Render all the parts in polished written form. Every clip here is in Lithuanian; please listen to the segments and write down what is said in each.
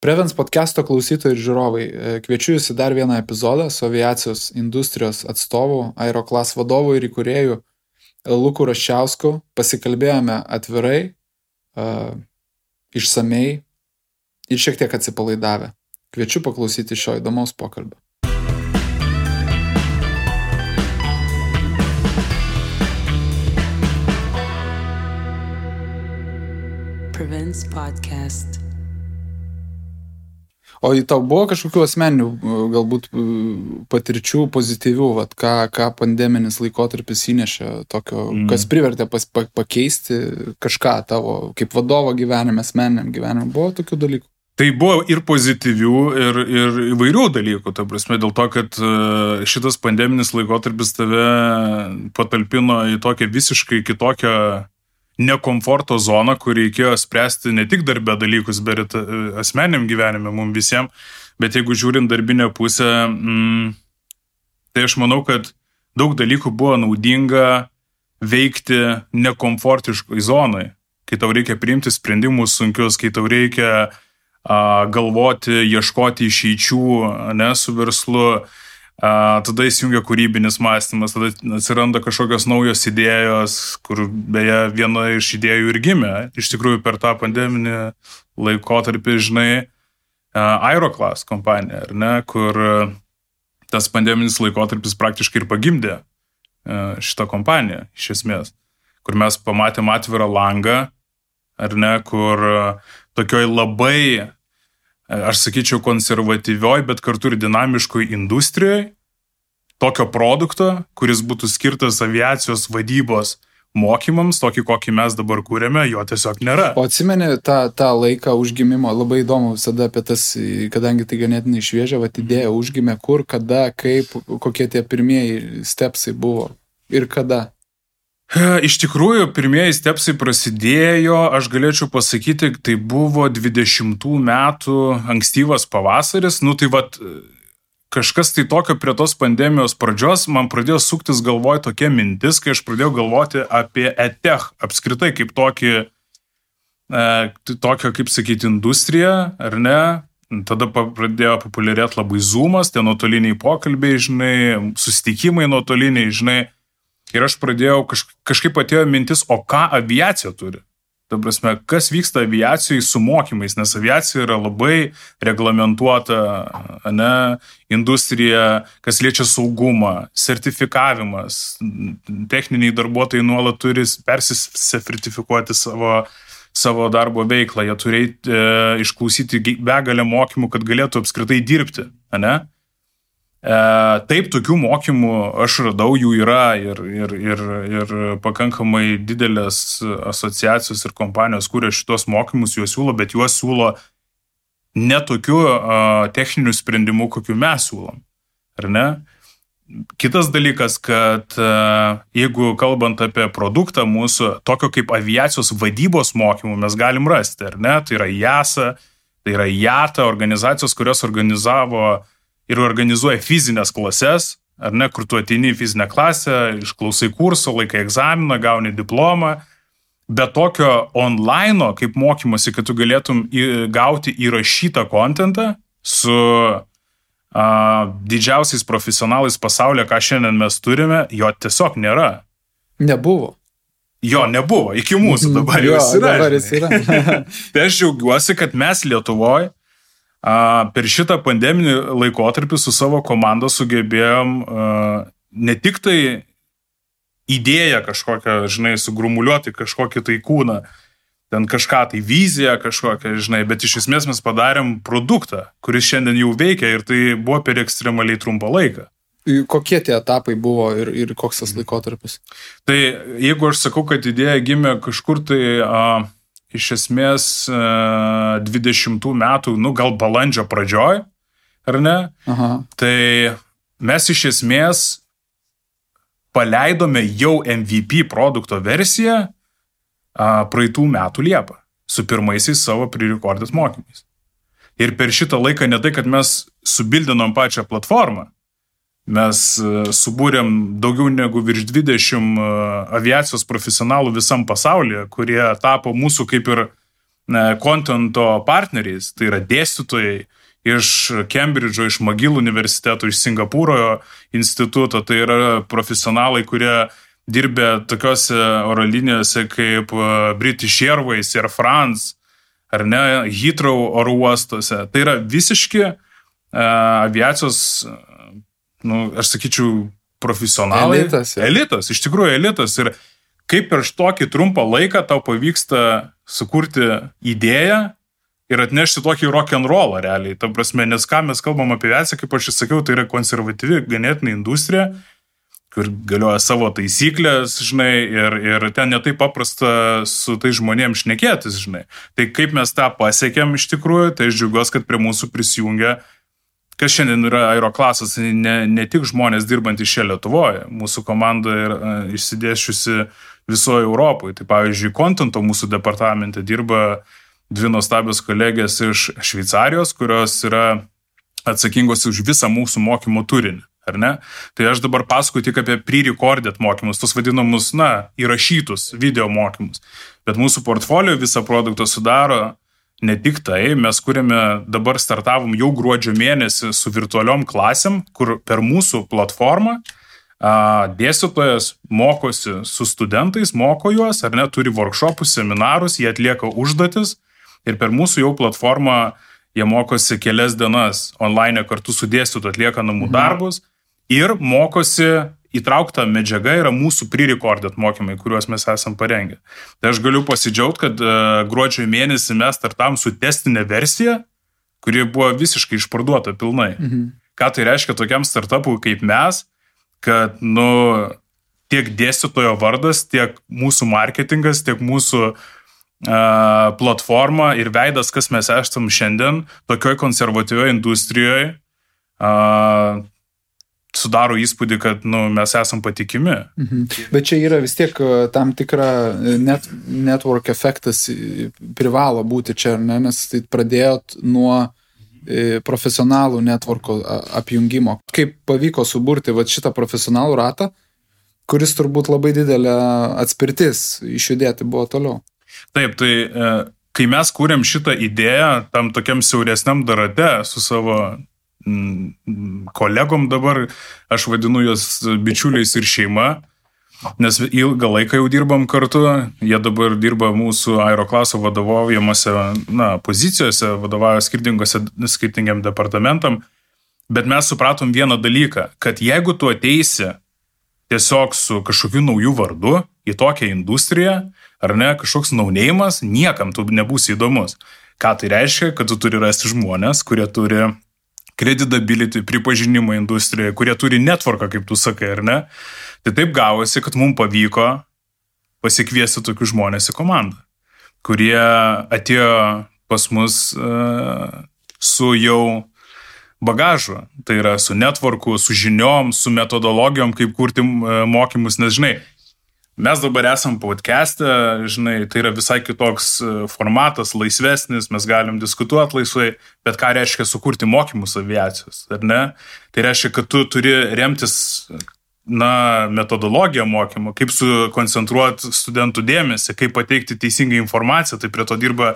Prevens podcast'o klausytojai ir žiūrovai, kviečiu jūs į dar vieną epizodą su aviacijos industrijos atstovu, Aeroclass vadovu ir įkūrėju Luku Raščiausku. Pasikalbėjome atvirai, išsamei ir šiek tiek atsipalaidavę. Kviečiu paklausyti šio įdomaus pokalbio. Prevents podcast. O į tau buvo kažkokių asmeninių, galbūt patirčių pozityvių, ką pandeminis laikotarpis įnešė tokio, kas privertė pakeisti kažką tavo kaip vadovo gyvenime, asmeniniam gyvenime? Buvo tokių dalykų? Tai buvo ir pozityvių, ir įvairių dalykų, ta prasme, dėl to, kad šitas pandeminis laikotarpis tave patalpino į tokią visiškai kitokią nekomforto zoną, kur reikėjo spręsti ne tik darbe dalykus, bet ir asmeniniam gyvenime mums visiems, bet jeigu žiūrint darbinę pusę, tai aš manau, kad daug dalykų buvo naudinga veikti nekomfortiškoj zonai, kai tau reikia priimti sprendimus sunkius, kai tau reikia galvoti, ieškoti išeičių, ne, su verslu, tada įsijungia kūrybinis mąstymas, tada atsiranda kažkokios naujos idėjos, kur beje viena iš idėjų ir gimė, iš tikrųjų per tą pandeminį laikotarpį, žinai, Aeroclass kompanija, ar ne, kur tas pandeminis laikotarpis praktiškai ir pagimdė šitą kompaniją, iš esmės, kur mes pamatėm atvirą langą, ar ne, kur tokioj labai, aš sakyčiau, konservatyvioj, bet kartu ir dinamiškoj industrijoj, tokio produkto, kuris būtų skirtas aviacijos vadybos mokymams, tokį, kokį mes dabar kūrėme, jo tiesiog nėra. O atsimeni tą laiką užgimimo, labai įdomu visada apie tas, kadangi tai ganėtinai šviežia, idėja užgimė kur, kada, kaip, kokie tie pirmieji stepsai buvo ir kada? Iš tikrųjų, pirmieji stepsai prasidėjo, aš galėčiau pasakyti, tai buvo 20 metų ankstyvas pavasaris, kažkas tai tokio prie tos pandemijos pradžios, man pradėjo suktis galvoj tokia mintis, kai aš pradėjau galvoti apie EdTech apskritai kaip tokią, kaip sakyti, industriją, ar ne? Tada pradėjo populiarėti labai Zoomas, tie nuotoliniai pokalbiai, žinai, susitikimai nuotoliniai, žinai. Ir aš pradėjau, kažkaip atėjo mintis, o ką aviacija turi? Ta prasme, kas vyksta aviacijai su mokymais, nes aviacija yra labai reglamentuota, ne, industrija, kas liečia saugumą, sertifikavimas, techniniai darbuotojai nuolat turi persisertifikuoti savo darbo veiklą, jie turi išklausyti begalę mokymų, kad galėtų apskritai dirbti, ne? Taip, tokių mokymų aš radau, jų yra ir pakankamai didelės asociacijos ir kompanijos, kurie šitos mokymus juos siūlo, bet juos siūlo ne tokių techninių sprendimų, kokių mes siūlom, ar ne? Kitas dalykas, kad jeigu kalbant apie produktą mūsų, tokio kaip aviacijos vadybos mokymų mes galim rasti, ar ne? Tai yra JASA, tai yra JATA, organizacijos, kurios organizavo ir organizuoja fizinės klases, ar ne, kur tu ateini į fizinę klasę, išklausai kurso, laikai egzaminą, gauni diplomą, bet tokio online, kaip mokymosi, kad tu galėtum gauti įrašytą kontentą su didžiausiais profesionalais pasaulyje, ką šiandien mes turime, jo tiesiog nėra. Nebuvo. Jo nebuvo, iki mūsų dabar jau yra. Dabar jis yra. Tai aš džiaugiuosi, kad mes Lietuvoje per šitą pandeminį laikotarpį su savo komanda sugebėjom ne tik tai idėją kažkokią, žinai, sugrumuliuoti kažkokį tai kūną, ten kažką tai viziją kažkokią, žinai, bet iš esmės mes padarėm produktą, kuris šiandien jau veikia ir tai buvo per ekstremaliai trumpą laiką. Kokie tie etapai buvo ir koks tas laikotarpis? Tai jeigu aš sakau, kad idėja gimė kažkur tai iš esmės 20 metų, gal balandžio pradžioj, ar ne? Aha. Tai mes iš esmės paleidome jau MVP produkto versiją praeitų metų Liepą su pirmaisiais savo pre-recorded mokymais. Ir per šitą laiką ne tai, kad mes subildinom pačią platformą, mes subūrėm daugiau negu virš 20 aviacijos profesionalų visam pasaulyje, kurie tapo mūsų kaip ir kontento partneriais, tai yra dėstytojai iš Cambridge'o, iš McGill universiteto, iš Singapūro instituto, tai yra profesionalai, kurie dirbė tokiose oro linijose kaip British Airways, Air France, ar ne, Heathrow oro uostuose. Tai yra visiški aviacijos, aš sakyčiau, profesionalai. Elitas, iš tikrųjų elitas. Ir kaip per tokį trumpą laiką tau pavyksta sukurti idėją ir atnešti tokį rock'n'rollą realiai. Ta prasme, nes ką mes kalbam apie aviaciją, kaip aš sakiau, tai yra konservatyvi ganėtinai industrija, kur galioja savo taisyklės, žinai, ir ten netai paprasta su tai žmonėms šnekėtis, žinai. Tai kaip mes tą pasiekėm iš tikrųjų, tai aš džiaugiuosi, kad prie mūsų prisijungia, kas šiandien yra Aeroklasas, ne tik žmonės dirbantys čia Lietuvoje, mūsų komanda yra išsidėsčiusi visoje Europoje. Tai pavyzdžiui, kontento mūsų departamente dirba 2 nuostabios kolegės iš Šveicarijos, kurios yra atsakingos už visą mūsų mokymo turinį. Ar ne? Tai aš dabar pasakoju tik apie pre-recorded mokymus, tos vadinamus, įrašytus video mokymus. Bet mūsų portfolio visą produktą sudaro ne tik tai, mes kuriame, dabar startavom jau gruodžio mėnesį su virtualiom klasėm, kur per mūsų platformą dėstytojas mokosi su studentais, moko juos, ar ne, turi workshopus, seminarus, jie atlieka užduotis ir per mūsų jau platformą jie mokosi kelias dienas online kartu su dėstytoju, atlieka namų darbus ir mokosi, įtraukta medžiaga yra mūsų pre-recorded mokymai, kuriuos mes esam parengę. Tai aš galiu pasidžiaugti, kad gruodžio mėnesį mes startavom su testinė versija, kuri buvo visiškai išparduota pilnai. Ką tai reiškia tokiam startupui kaip mes, kad, tiek dėstytojo vardas, tiek mūsų marketingas, tiek mūsų platforma ir veidas, kas mes esam šiandien, tokioj konservatyvioje industrijoje, sudaro įspūdį, kad mes esam patikimi. Bet čia yra vis tiek tam tikra network efektas privalo būti čia, nes tai pradėjot nuo profesionalų networko apjungimo. Kaip pavyko suburti šitą profesionalų ratą, kuris turbūt labai didelė atspirtis išjudėti buvo toliau. Taip, tai kai mes kūrėm šitą idėją tam tokiam siauresniam darate su savo kolegom dabar, aš vadinu juos bičiuliais ir šeima, nes ilgą laiką jau dirbam kartu, jie dabar dirba mūsų Aeroklaso vadovaujamose pozicijose, vadovauja skirtingiam departamentam, bet mes supratom vieną dalyką, kad jeigu tu ateisi tiesiog su kažkokiu naujų vardu į tokią industriją, ar ne, kažkoks naunėjimas, niekam tu nebūsi įdomus. Ką tai reiškia? Kad tu turi rasti žmonės, kurie turi credibility, pripažinimo industrijoje, kurie turi networką, kaip tu sakai, ar ne? Tai taip gavosi, kad mums pavyko pasikviesti tokius žmonės į komandą, kurie atėjo pas mus su jau bagažu, tai yra su networku, su žiniom, su metodologijom, kaip kurti mokymus, nes žinai, mes dabar esam podcast'e, žinai, tai yra visai kitoks formatas, laisvesnis, mes galim diskutuoti laisvai, bet ką reiškia sukurti mokymus aviacijos, ar ne? Tai reiškia, kad tu turi remtis metodologiją mokymo, kaip sukoncentruoti studentų dėmesį, kaip pateikti teisingą informaciją, tai prie to dirba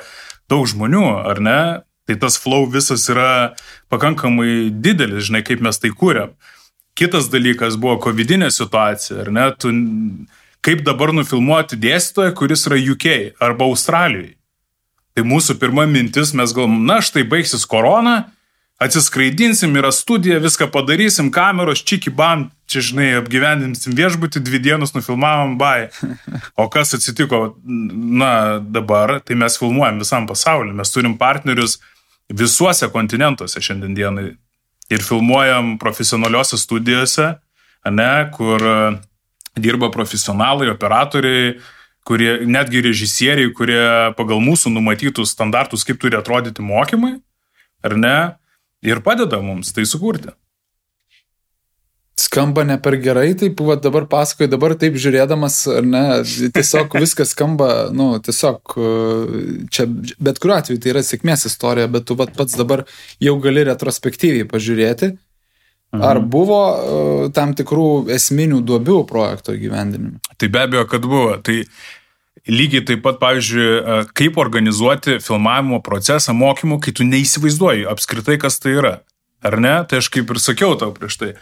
daug žmonių, ar ne? Tai tas flow visas yra pakankamai didelis, žinai, kaip mes tai kūrėm. Kitas dalykas buvo covidinė situacija, ar ne? Kaip dabar nufilmuoti dėstytoją, kuris yra UK arba Australijoje. Tai mūsų pirma mintis, mes galvom, štai baigsis korona, atsiskraidinsim, yra studija, viską padarysim, kameros, čiki bam, čia, žinai, apgyvendinsim viešbutį, 2 dienas nufilmavom, bye. O kas atsitiko, dabar, tai mes filmuojam visam pasauliu, mes turim partnerius visuose kontinentuose šiandien dienai ir filmuojam profesionaliuose studijose, ne, kur dirba profesionalai, operatoriai, kurie, netgi režisieriai, kurie pagal mūsų numatytus standartus, kaip turi atrodyti mokymai, ar ne, ir padeda mums tai sukurti. Skamba ne per gerai, taip, dabar pasakoju, dabar taip žiūrėdamas, ar ne, tiesiog viskas skamba, tiesiog čia, bet kuriuo atveju tai yra sėkmės istorija, bet tu pats dabar jau gali retrospektyviai pažiūrėti, ar buvo tam tikrų esminių duobių projekto įgyvendinime? Tai be abejo, kad buvo. Tai lygiai taip pat, pavyzdžiui, kaip organizuoti filmavimo procesą mokymų, kai tu neįsivaizduoji apskritai, kas tai yra. Ar ne? Tai aš kaip ir sakiau tau prieš tai.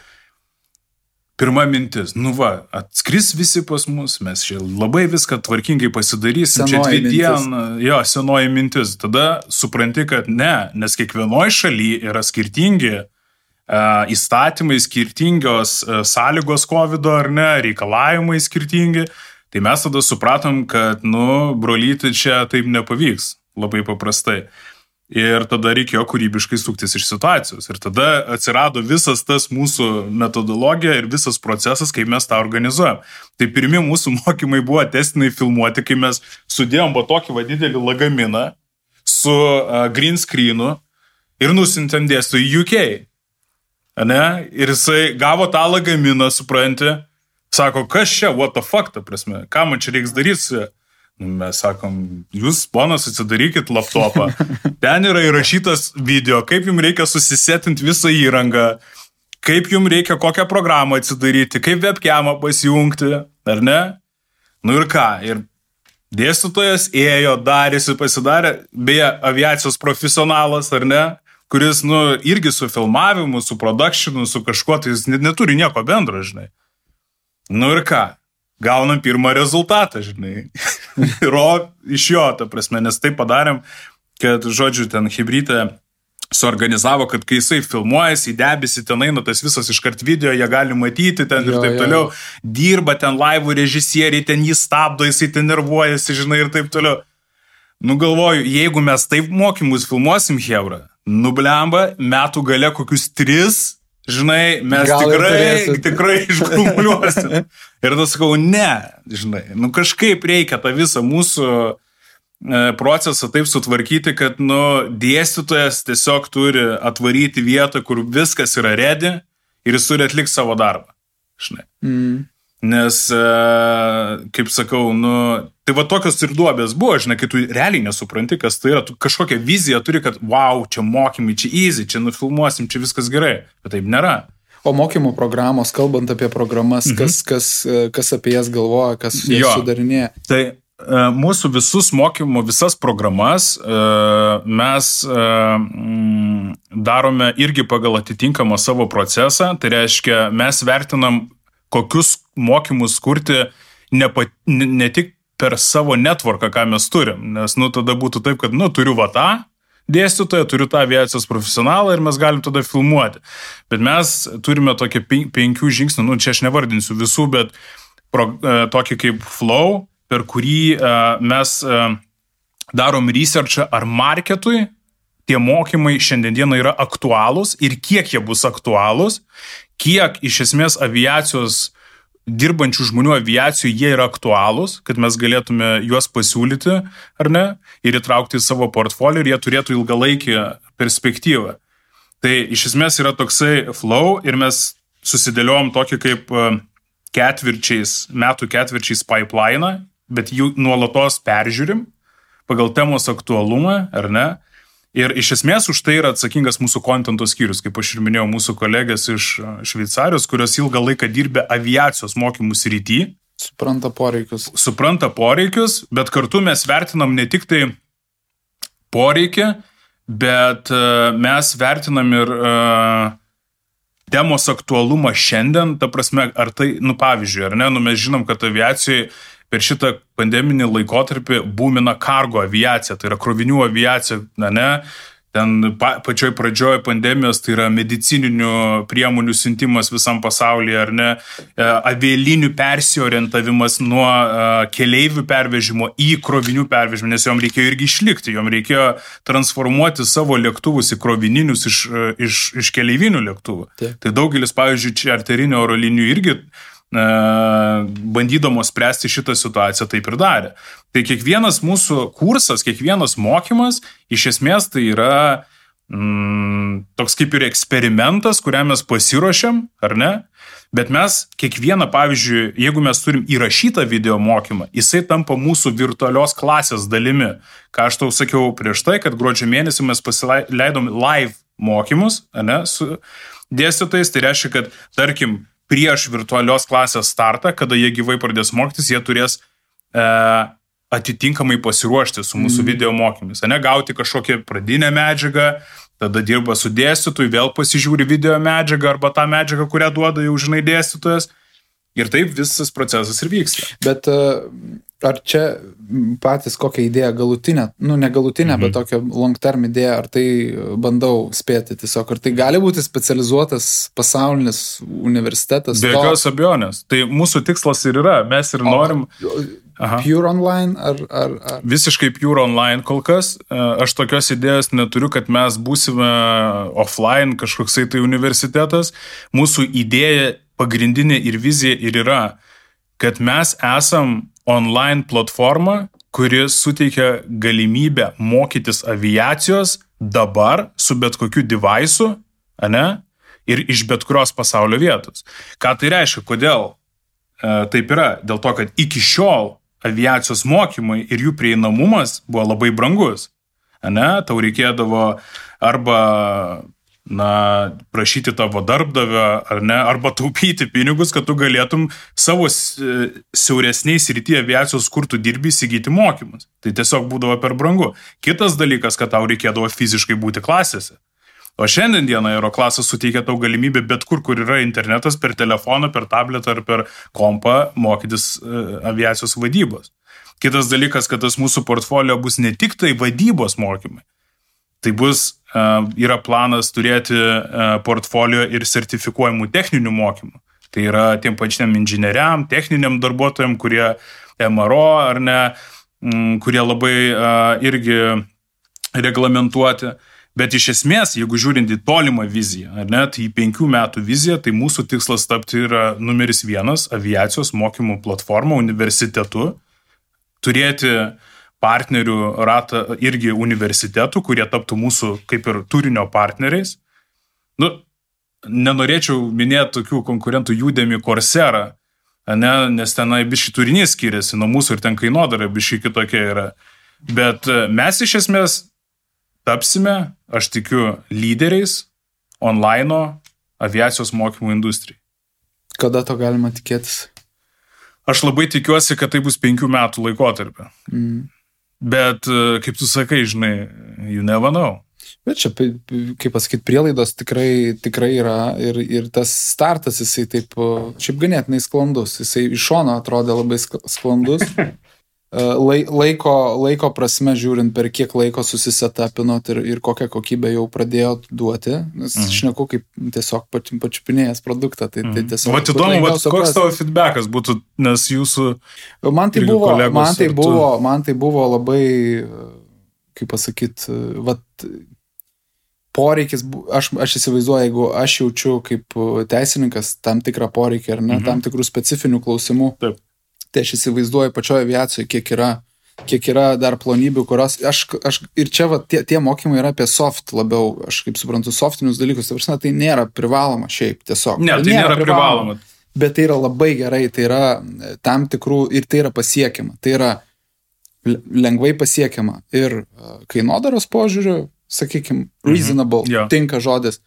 Pirma mintis, atskris visi pas mus, mes čia labai viską tvarkingai pasidarysim, čia 2 dieną, senoji mintis. Tada supranti, kad ne, nes kiekvienoje šalyje yra skirtingi įstatymai, skirtingios sąlygos COVID, ar ne, reikalavimai skirtingi. Tai mes tada supratom, kad, brolyti čia taip nepavyks, labai paprastai. Ir tada reikėjo kūrybiškai suktis iš situacijos. Ir tada atsirado visas tas mūsų metodologija ir visas procesas, kaip mes tą organizuojam. Tai pirmi mūsų mokymai buvo testiniai filmuoti, kai mes sudėjom tokį didelį lagaminą su green screenu ir nusintėm dėstytojui į UK. Ne? Ir jisai gavo tą lagaminą, supranti, sako, kas čia, what the fuck, ta prasme, ką man čia reiks daryti? Mes sakom, jūs, ponas, atsidarykit laptopą. Ten yra įrašytas video, kaip jums reikia susisetinti visą įrangą, kaip jums reikia kokią programą atsidaryti, kaip webcamą pasijungti, ar ne? Ir ką? Ir dėstytojas ėjo, darėsi, pasidarė, beje, aviacijos profesionalas, ar ne? Kuris, irgi su filmavimu, su productionu, su kažkuo, tai jis neturi nieko bendro, žinai. Ir ką? Gaunam pirmą rezultatą, žinai. Iš jo, ta prasme, nes taip padarėm, kad, žodžiu, ten hibrytė suorganizavo, kad kai jisai filmuojasi, į debesį ten eina tas visas iškart video, jie gali matyti ten ir taip toliau, dirba ten laivų režisieriai, ten jį stabdo, jisai ten nervuojasi, žinai, ir taip toliau. Galvoju, jeigu mes taip mokymus filmuosim, hebra, blemba, metų gale kokius 3, žinai, mes tikrai iškrumuliuosim. Ir tada sakau, ne, žinai, kažkaip reikia tą visą mūsų procesą taip sutvarkyti, kad, dėstytojas tiesiog turi atvaryti vietą, kur viskas yra ready ir jis turi atlikti savo darbą, žinai. Nes, kaip sakau, tai tokios ir duobės buvo, žinai, kai tu realiai nesupranti, kas tai yra, tu kažkokią viziją turi, kad, wow, čia mokymai, čia easy, čia nufilmuosim, čia viskas gerai, bet taip nėra. O mokymo programos, kalbant apie programas, kas apie jas galvoja, kas jas sudarinėja? Tai mūsų visas programas mes darome irgi pagal atitinkamą savo procesą, tai reiškia, mes vertinam, kokius mokymus kurti ne tik per savo networką, ką mes turim, nes tada būtų taip, kad turiu tą dėstytoją, turiu tą aviacijos profesionalą ir mes galim tada filmuoti. Bet mes turime tokį 5 žingsnių, čia aš nevardinsiu visų, bet tokį kaip flow, per kurį mes darom researchą ar marketui, tie mokymai šiandieną yra aktualūs ir kiek jie bus aktualūs, kiek iš esmės aviacijos dirbančių žmonių aviacijų jie yra aktualūs, kad mes galėtume juos pasiūlyti, ar ne, ir įtraukti į savo portfolio ir jie turėtų ilgalaikį perspektyvą. Tai iš esmės yra toksai flow ir mes susidėliojom tokį kaip metų ketvirčiais pipeline, bet jų nuolatos peržiūrim pagal temos aktualumą, ar ne? Ir iš esmės už tai yra atsakingas mūsų kontento skyrius, kaip aš ir minėjau, mūsų kolegės iš Šveicarijos, kurios ilgą laiką dirbė aviacijos mokymų srity. Supranta poreikius, bet kartu mes vertinam ne tik tai poreikį, bet mes vertinam ir temos aktualumą šiandien, ta prasme, ar tai, pavyzdžiui, ar ne, mes žinom, kad aviacijai per šitą pandeminį laikotarpį būmina kargo aviacija, tai yra krovinių aviacija, ne, ten pačioj pradžioje pandemijos, tai yra medicininių priemonių siuntimas visam pasaulyje, ar ne, avialinių persiorientavimas nuo keleivių pervežimo į krovinių pervežimą, nes jom reikėjo irgi išlikti, jom reikėjo transformuoti savo lėktuvus į krovininius iš keleivinių lėktuvų. Taip. Tai daugelis, pavyzdžiui, čarterinių oro linijų irgi bandydamos spręsti šitą situaciją taip ir darė. Tai kiekvienas mūsų kursas, kiekvienas mokymas, iš esmės tai yra toks kaip ir eksperimentas, kuriam mes pasiruošiam, ar ne? Bet mes kiekvieną, pavyzdžiui, jeigu mes turim įrašytą video mokymą, jisai tampa mūsų virtualios klasės dalimi. Ką aš tau sakiau prieš tai, kad gruodžio mėnesį mes pasileidom live mokymus, ne, su dėstytojais, tai reiškia, kad, tarkim, prieš virtualios klasės startą, kada jie gyvai pradės mokytis, jie turės atitinkamai pasiruošti su mūsų video mokymis, ne gauti kažkokią pradinę medžiagą, tada dirba su dėstytoju, vėl pasižiūri video medžiagą arba tą medžiagą, kurią duoda jau žinai dėstytojas. Ir taip visas procesas ir vyksta. Bet ar čia patys kokią idėją galutinę, ne galutinę, bet tokią long term idėją, ar tai bandau spėti tiesiog, ar tai gali būti specializuotas pasaulinis universitetas? Be jokios abejonės. Tai mūsų tikslas ir yra, mes ir norim... Pure online ar... Visiškai pure online kol kas. Aš tokios idėjos neturiu, kad mes būsime offline kažkoksai tai universitetas. Mūsų idėja pagrindinė ir vizija ir yra, kad mes esam online platforma, kuri suteikia galimybę mokytis aviacijos dabar su bet kokiu device'u, ir iš bet kurios pasaulio vietos. Ką tai reiškia? Kodėl taip yra? Dėl to, kad iki šiol aviacijos mokymai ir jų prieinamumas buvo labai brangus. Tau reikėdavo arba prašyti tavo darbdavio, arba taupyti pinigus, kad tu galėtum savo siauresniais srityje aviacijos, kur tu dirbi, įsigyti mokymus. Tai tiesiog būdavo per brangu. Kitas dalykas, kad tau reikėdavo fiziškai būti klasėse. O šiandien dieną Aeroklasas suteikia tau galimybę bet kur yra internetas, per telefoną, per tabletą ar per kompą mokytis aviacijos vadybos. Kitas dalykas, kad tas mūsų portfolio bus ne tik tai vadybos mokymai. Tai bus, yra planas turėti portfolio ir sertifikuojamų techninių mokymų. Tai yra tiem pačiam inžinieriam, techniniam darbuotojam, kurie MRO ar ne, kurie labai irgi reglamentuoti. Bet iš esmės, jeigu žiūrint į tolimą viziją, tai į 5 metų viziją, tai mūsų tikslas tapti yra numeris 1 aviacijos mokymų platforma universitetu, turėti partnerių ratą irgi universitetų, kurie taptų mūsų kaip ir turinio partneriais. Nenorėčiau minėti tokių konkurentų Udemy, Coursera, nes tenai biški turinys skiriasi nuo mūsų ir ten kainodara biški kitokia yra. Bet mes iš esmės tapsime, aš tikiu, lyderiais online aviacijos mokymų industrijai. Kada to galima tikėtis? Aš labai tikiuosi, kad tai bus 5 metų laikotarpio. Bet, kaip tu sakai, žinai, you never know. Bet čia, kaip pasakyti, prielaidos tikrai yra ir tas startas, jisai taip, šiaip ganėtinai sklandus. Jisai iš šono atrodė labai sklandus. Laiko prasme žiūrint, per kiek laiko susisetapinot ir kokią kokybę jau pradėjot duoti, nes šneku kaip tiesiog pačiupinėjęs produktą. Tai tiesiog... Vat įdomu, koks tavo feedbackas būtų, nes jūsų man tai buvo labai, kaip pasakyt, poreikis, aš įsivaizduoju, jeigu aš jaučiu kaip teisininkas tam tikrą poreikį ar ne, tam tikrų specifinių klausimų. Taip. Tai aš įsivaizduoju pačioje aviacijoje, kiek yra dar plonybių, kurios aš ir čia tie mokymai yra apie soft labiau, aš kaip suprantu, softinius dalykus, tai nėra privaloma šiaip tiesiog. Ne, tai nėra privaloma. Bet tai yra labai gerai, tai yra tam tikrų ir tai yra pasiekiama, tai yra lengvai pasiekiama ir kainodaros požiūriu, sakykime, reasonable, tinka žodis,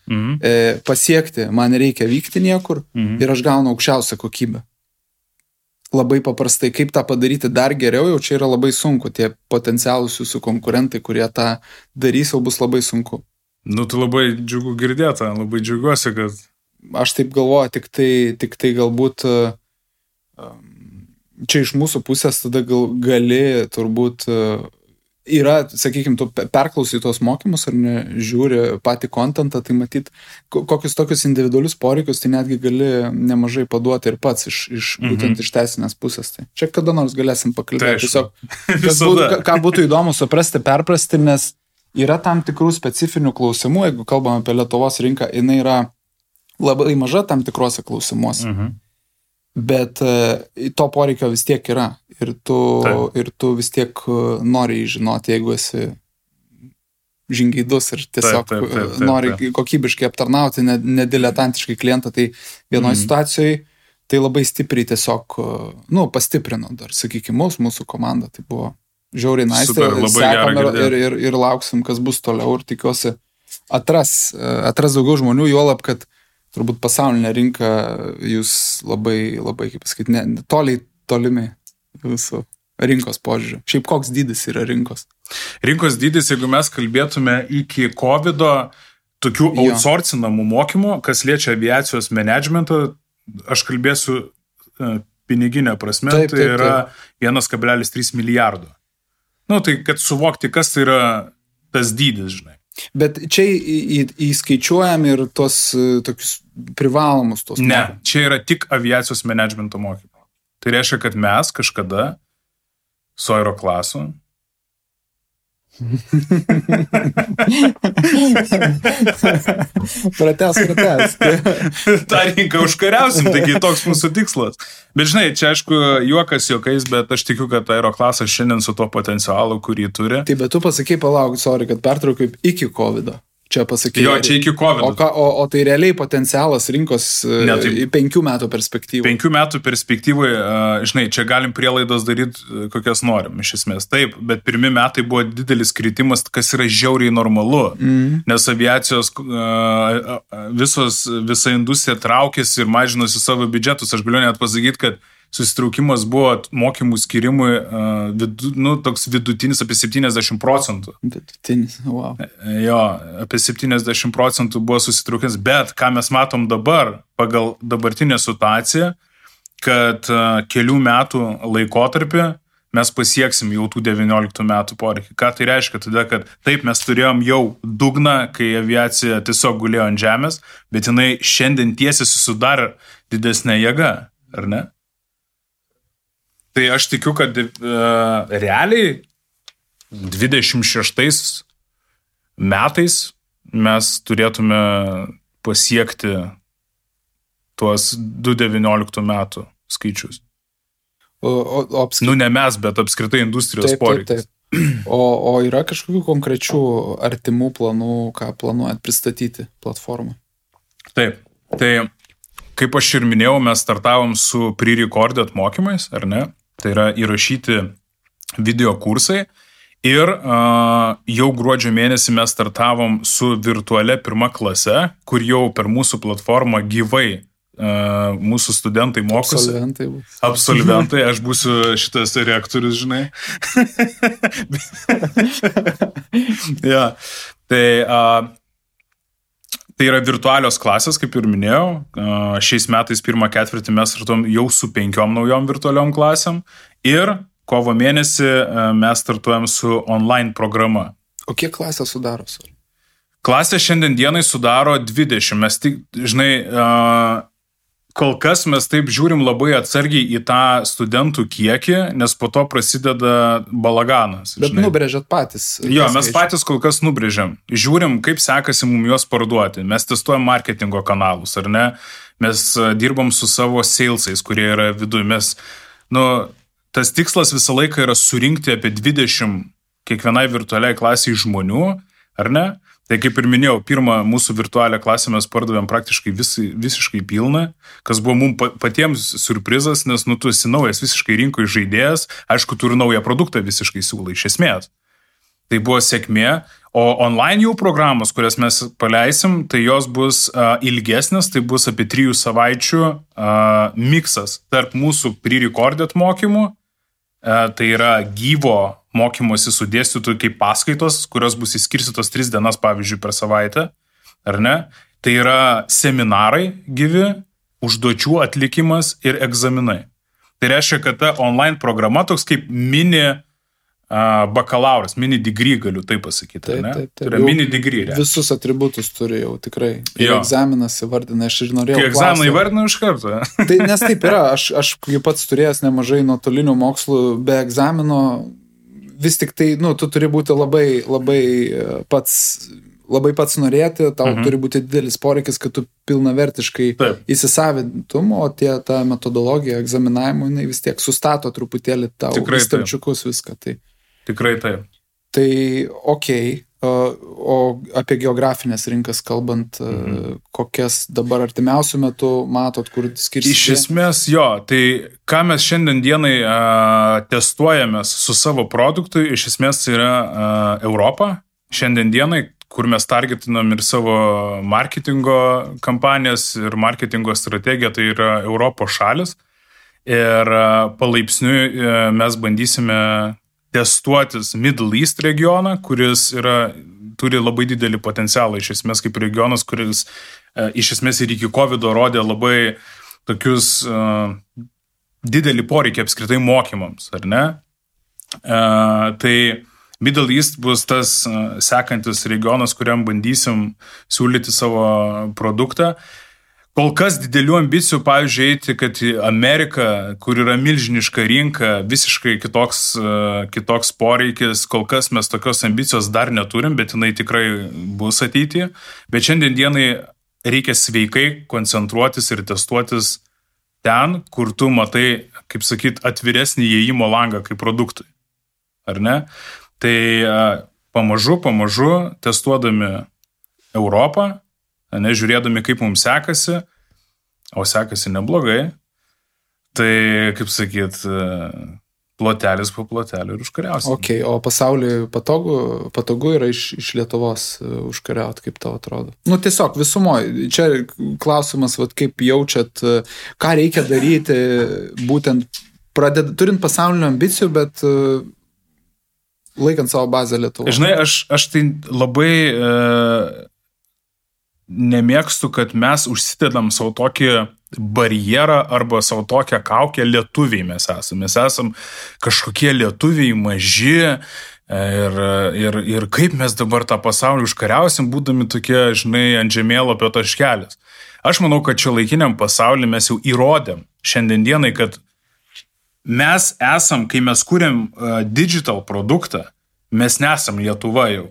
pasiekti, man reikia vykti niekur ir aš gaunu aukščiausią kokybę. Labai paprastai, kaip tą padaryti dar geriau, jau čia yra labai sunku, tie potencialūs jūsų konkurentai, kurie tą darys, jau bus labai sunku. Tai labai džiugu girdėta, labai džiugiuosi, kad... Aš taip galvoju, tik tai galbūt čia iš mūsų pusės tada gali turbūt... Yra, sakykime, tu perklausai tos mokymus ar ne, žiūri patį kontentą, tai matyt, kokius tokius individualius poreikius, tai netgi gali nemažai paduoti ir pats būtent iš teisinės pusės. Tai čia kada nors galėsim pakalbėti. Tiesiog, ką būtų įdomu suprasti, perprasti, nes yra tam tikrų specifinių klausimų, jeigu kalbam apie Lietuvos rinką, jinai yra labai maža tam tikrose klausimuose. Bet to poreikio vis tiek yra ir tu vis tiek nori žinoti, jeigu esi žingeidus ir tiesiog nori kokybiškai aptarnauti, nediletantiškai klientą, tai vienoje situacijoje tai labai stipriai tiesiog, pastiprino dar, sakykime, mūsų komandą, tai buvo žiauriai nice, sekam ir lauksim, kas bus toliau ir tikiuosi atras daugiau žmonių, juolab, kad turbūt pasaulinė rinka jūs labai, kaip pasakyti, tolimi jūsų rinkos požiūriu? Šiaip koks dydis yra rinkos? Rinkos dydis, jeigu mes kalbėtume iki COVID-o, tokių outsourcinamų mokymų, kas liečia aviacijos managementą, aš kalbėsiu piniginę prasme, tai yra 1,3 milijardo. Nu, tai kad suvokti, kas tai yra tas dydis, žinai. Bet čia įskaičiuojam ir tos tokius privalomus tos mokymus? Ne, čia yra tik aviacijos managemento mokymų. Tai reiškia, kad mes kažkada su Aeroklasu Pratęs. tą rinką užkariausim, taigi toks mūsų tikslas. Bet žinai, čia aišku juokas juokais, bet aš tikiu, kad Aeroklasas šiandien su to potencialu, kurį turi. Tai bet tu pasakai, palauk, sorry, kad pertraukiu iki COVID-o. Čia pasakai. Jo, čia iki COVID. O tai realiai potencialas rinkos 5 metų perspektyvai. 5 metų perspektyvai, žinai, čia galim prielaidas daryti, kokias norim, iš esmės. Taip, bet pirmi metai buvo didelis kritimas, kas yra žiauriai normalu, nes aviacijos visa industrija traukėsi ir mažinosi savo biudžetus. Aš galiu net pasakyti, kad susitraukimas buvo mokymų skirimui, toks vidutinis apie 70%. Vidutinis, wow. Jo, apie 70% buvo susitraukimas, bet ką mes matom dabar, pagal dabartinę situaciją, kad kelių metų laikotarpį mes pasieksim jau tų 19 metų poreikį. Ką tai reiškia? Tada, kad taip mes turėjom jau dugną, kai aviacija tiesiog gulėjo ant žemės, bet jinai šiandien tiesiai susidarė didesnė jėga, ar ne? Tai aš tikiu, kad realiai 26 metais mes turėtume pasiekti tuos 2019 metų skaičius. Ne mes, bet apskritai industrijos poreikis. Taip. O yra kažkokių konkrečių artimų planų, ką planuojat pristatyti platformą? Taip. Tai kaip aš ir minėjau, mes startavom su pre-recorded mokymais, ar ne? Tai yra įrašyti video kursai ir jau gruodžio mėnesį mes startavom su virtualia 1 klase, kur jau per mūsų platformą gyvai mūsų studentai mokosi. Absolventai, aš būsiu šitas reaktorius, žinai. Ja, tai yra virtualios klasės, kaip ir minėjau. Šiais metais 1 ketvirtį mes startuom jau su 5 naujom virtualiom klasėm ir kovo mėnesį mes startuojam su online programa. O kiek klasę sudaro? Klasė šiandien dienai sudaro 20. Mes tik, žinai, kol kas mes taip žiūrim labai atsargiai į tą studentų kiekį, nes po to prasideda balaganas. Bet žinai, nubrėžiat patys. Jo, mes patys kol kas nubrėžiam. Žiūrim, kaip sekasi mums juos parduoti. Mes testuojam marketingo kanalus, ar ne? Mes dirbam su savo salesais, kurie yra viduje. Mes, tas tikslas visą laiką yra surinkti apie 20 kiekvienai virtualiai klasiai žmonių, ar ne? Tai kaip ir minėjau, pirmą mūsų virtualią klasę mes pardavėm praktiškai visiškai pilną, kas buvo mums patiems surprizas, nes tu esi naujas visiškai rinkoje žaidėjas, aišku, tu ir naują produktą visiškai siūlai iš esmės. Tai buvo sėkmė, o online jau programos, kurias mes paleisim, tai jos bus ilgesnės, tai bus apie 3 savaičių miksas tarp mūsų pre-recorded mokymų, tai yra gyvo mokymosi su dėstytojų kaip paskaitos, kurios bus įskirstytos 3 dienas, pavyzdžiui, per savaitę, ar ne? Tai yra seminarai gyvi, užduočių atlikimas ir egzaminai. Tai reiškia, kad ta online programa toks kaip mini bakalauras, mini degree, galiu taip pasakyti, ne? Tai yra mini degree. Visus atributus turi jau tikrai. Ir egzaminas įvardina, aš ir norėjau. Kai egzaminą įvardina iš karto. Tai nes taip yra, aš pats turėjęs nemažai nuotolinių mokslų be egzamino. Vis tik tai, tu turi būti labai pats norėti, tau turi būti didelis poreikis, kad tu pilnavertiškai įsisavintum, o ta metodologija egzaminavimo, jinai vis tiek sustato truputėlį tau į stalčiukus viską. Tai. Tikrai taip. Tai okei, o apie geografinės rinkas kalbant, kokias dabar artimiausių metų matot, kur skirsite? Iš esmės jo, tai ką mes šiandien dienai testuojamės su savo produktu, iš esmės yra Europa. Šiandien dienai, kur mes targetinam ir savo marketingo kampanijas ir marketingo strategiją, tai yra Europos šalis. Ir palaipsniui mes bandysime testuotis Middle East regioną, kuris turi labai didelį potencialą, iš esmės kaip regionas, kuris iš esmės ir iki COVID rodė labai tokius didelį poreikį apskritai mokymams, ar ne? Tai Middle East bus tas sekantis regionas, kuriam bandysim siūlyti savo produktą. Kol kas didelių ambicijų, pavyzdžiui, eiti, kad į Ameriką, kur yra milžiniška rinka, visiškai kitoks poreikis, kol kas mes tokios ambicijos dar neturim, bet jinai tikrai bus ateityje. Bet šiandien dienai reikia sveikai koncentruotis ir testuotis ten, kur tu matai, kaip sakyt, atviresnį įėjimo langą kaip produktui. Ar ne? Tai pamažu testuodami Europą, žiūrėdami, kaip mums sekasi, o sekasi neblogai, tai, kaip sakyt, plotelis po plotelį ir užkariausim. Okay, o pasauliui patogu yra iš Lietuvos užkariauti, kaip tau atrodo? Nu, tiesiog visumoje. Čia klausimas, kaip jaučiat, ką reikia daryti, būtent turint pasaulinių ambicijų, bet laikant savo bazę Lietuvoje. Žinai, aš tai labai nemėgstu, kad mes užsidedam savo tokį barjerą arba savo tokią kaukę lietuviai mes esame. Mes esam kažkokie lietuviai maži ir kaip mes dabar tą pasaulį užkariausim, būdami tokie, žinai, ant žemėlapio taškelis. Aš manau, kad čia laikiniam pasaulyje mes jau įrodėm šiandien dienai, kad mes esam, kai mes kūrėm digital produktą, mes nesam Lietuva jau.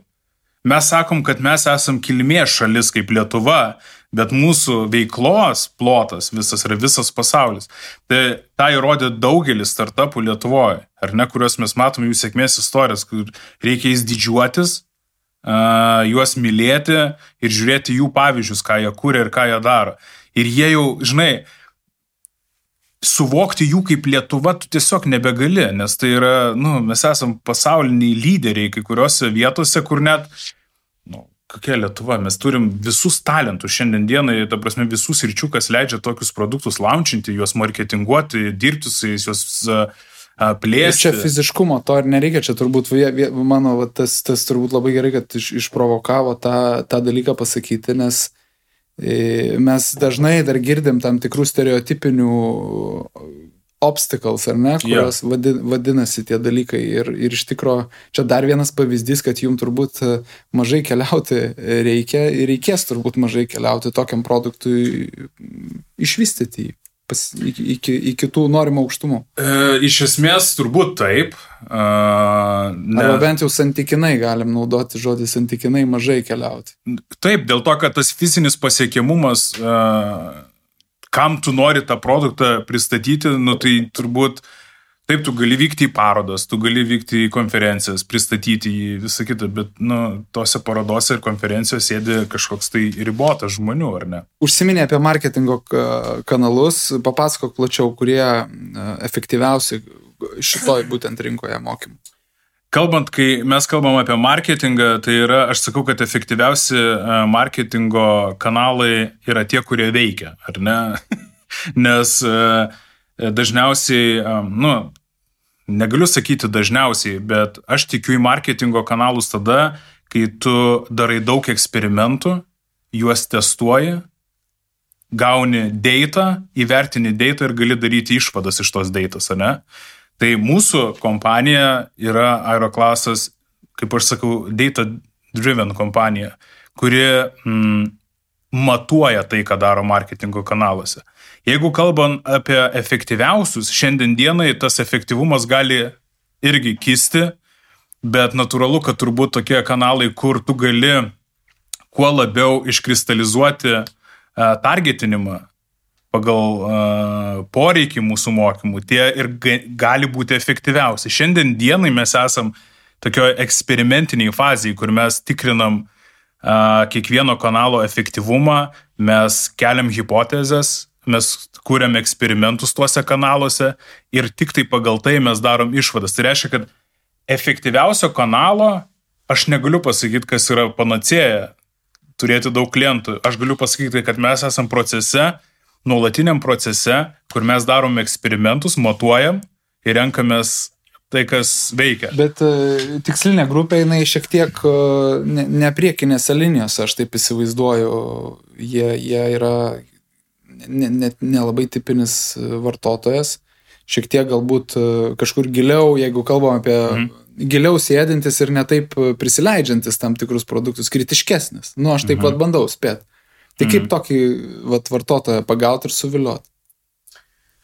Mes sakom, kad mes esam kilmės šalis kaip Lietuva, bet mūsų veiklos plotas visas yra visas pasaulis. Tai tą įrodė daugelis startupų Lietuvoje, ar ne, kuriuos mes matom jų sėkmės istorijas, kur reikia jais didžiuotis, juos mylėti ir žiūrėti jų pavyzdžius, ką jie kūrė ir ką jie daro. Ir jie jau, žinai, suvokti jų kaip Lietuva tu tiesiog nebegali, nes tai yra, mes esam pasauliniai lyderiai kai kuriuose vietose, kur net, kokia Lietuva, mes turim visus talentus šiandien dienai, ta prasme visus sričių, kas leidžia tokius produktus launchinti, juos marketinguoti, dirbti su jais, juos plėsti. Čia fiziškumo to ir nereikia, čia turbūt, mano, tas turbūt labai gerai, kad išprovokavo tą dalyką pasakyti, nes mes dažnai dar girdim tam tikrų stereotipinių obstacles, ar ne, kurios vadinasi tie dalykai. Ir iš tikro, čia dar vienas pavyzdys, kad jums turbūt mažai keliauti reikia ir reikės turbūt mažai keliauti tokiam produktui išvystyti iki tų norimų aukštumų. Iš esmės turbūt taip. Arba bent jau santykinai galim naudoti žodį santykinai mažai keliauti. Taip, dėl to, kad tas fizinis pasiekiamumas, kam tu nori tą produktą pristatyti, tai turbūt taip, tu gali vykti į parodas, tu gali vykti į konferencijas, pristatyti jį, visą kitą, bet tose parodose ir konferencijose sėdi kažkoks tai ribotas žmonių, ar ne? Užsiminė apie marketingo kanalus, papasakok plačiau, kurie efektyviausi šitoj būtent rinkoje mokymų. Kalbant, kai mes kalbam apie marketingą, tai yra, aš sakau, kad efektyviausi marketingo kanalai yra tie, kurie veikia, ar ne? Nes dažniausiai, negaliu sakyti dažniausiai, bet aš tikiu į marketingo kanalus tada, kai tu darai daug eksperimentų, juos testuoji, gauni data, įvertini data ir gali daryti išvadas iš tos datos, ne? Tai mūsų kompanija yra Aeroclassas, kaip aš sakau, data-driven kompanija, kuri matuoja tai, ką daro marketingo kanaluose. Jeigu kalbam apie efektyviausius, šiandien dienai tas efektyvumas gali irgi kisti, bet natūralu, kad turbūt tokie kanalai, kur tu gali kuo labiau iškristalizuoti targetinimą pagal poreikį mūsų mokymų, tie ir gali būti efektyviausi. Šiandien dienai mes esam tokioje eksperimentiniai fazėje, kur mes tikrinam kiekvieno kanalo efektyvumą, mes keliam hipotezes, mes kūrėm eksperimentus tuose kanaluose ir tik tai pagal tai mes darom išvadas. Tai reiškia, kad efektyviausio kanalo aš negaliu pasakyti, kas yra panacėja turėti daug klientų. Aš galiu pasakyti, kad mes esam procese nuolatiniam procese, kur mes darom eksperimentus, matuojam ir renkamės tai, kas veikia. Bet tikslinė grupė, jinai šiek tiek ne priekinėse linijose, aš taip įsivaizduoju, jie yra nelabai tipinis vartotojas, šiek tiek galbūt kažkur giliau, jeigu kalbam apie giliau sėdintis ir netaip prisileidžiantis tam tikrus produktus, kritiškesnis. Aš taip pat bandau spėti. Tai kaip tokį vartotoją pagauti ir suvilioti?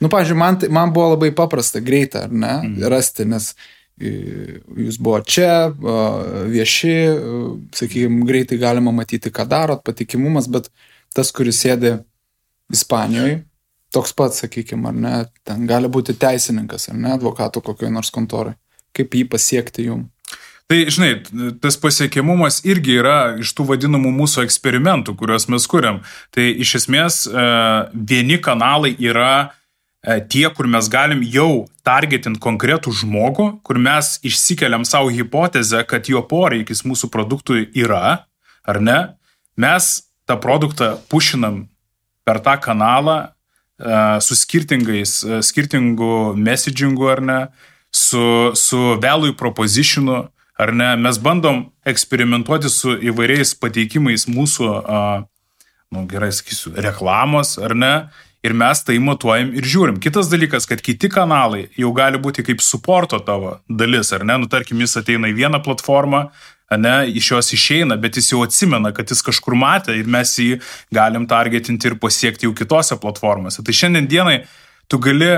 Pavyzdžiui, man buvo labai paprasta, greita, ar ne, rasti, nes jūs buvo čia, vieši, sakykime, greitai galima matyti, ką darot, patikimumas, bet tas, kuris sėdi Ispanijoje, toks pats, sakykime, ar ne, ten gali būti teisininkas, ar ne, advokatų kokioje nors kontorai. Kaip jį pasiekti jum? Tai, žinai, tas pasiekiamumas irgi yra iš tų vadinamų mūsų eksperimentų, kuriuos mes kuriam. Tai iš esmės vieni kanalai yra tie, kur mes galim jau targetint konkretų žmogų, kur mes išsikeliam savo hipotezę, kad jo poreikis mūsų produktui yra, ar ne? Mes tą produktą pušinam per tą kanalą su skirtingu messagingu, ar ne? Su value propositionu, ar ne, mes bandom eksperimentuoti su įvairiais pateikimais mūsų, gerai sakysiu, reklamos, ar ne, ir mes tai matuojam ir žiūrim. Kitas dalykas, kad kiti kanalai jau gali būti kaip supporto tavo dalis, ar ne, tarkim, jis ateina į vieną platformą, ne, iš jos išeina, bet jis jau atsimena, kad jis kažkur matė ir mes jį galim targetinti ir pasiekti jau kitose platformose. Tai šiandien dienai tu gali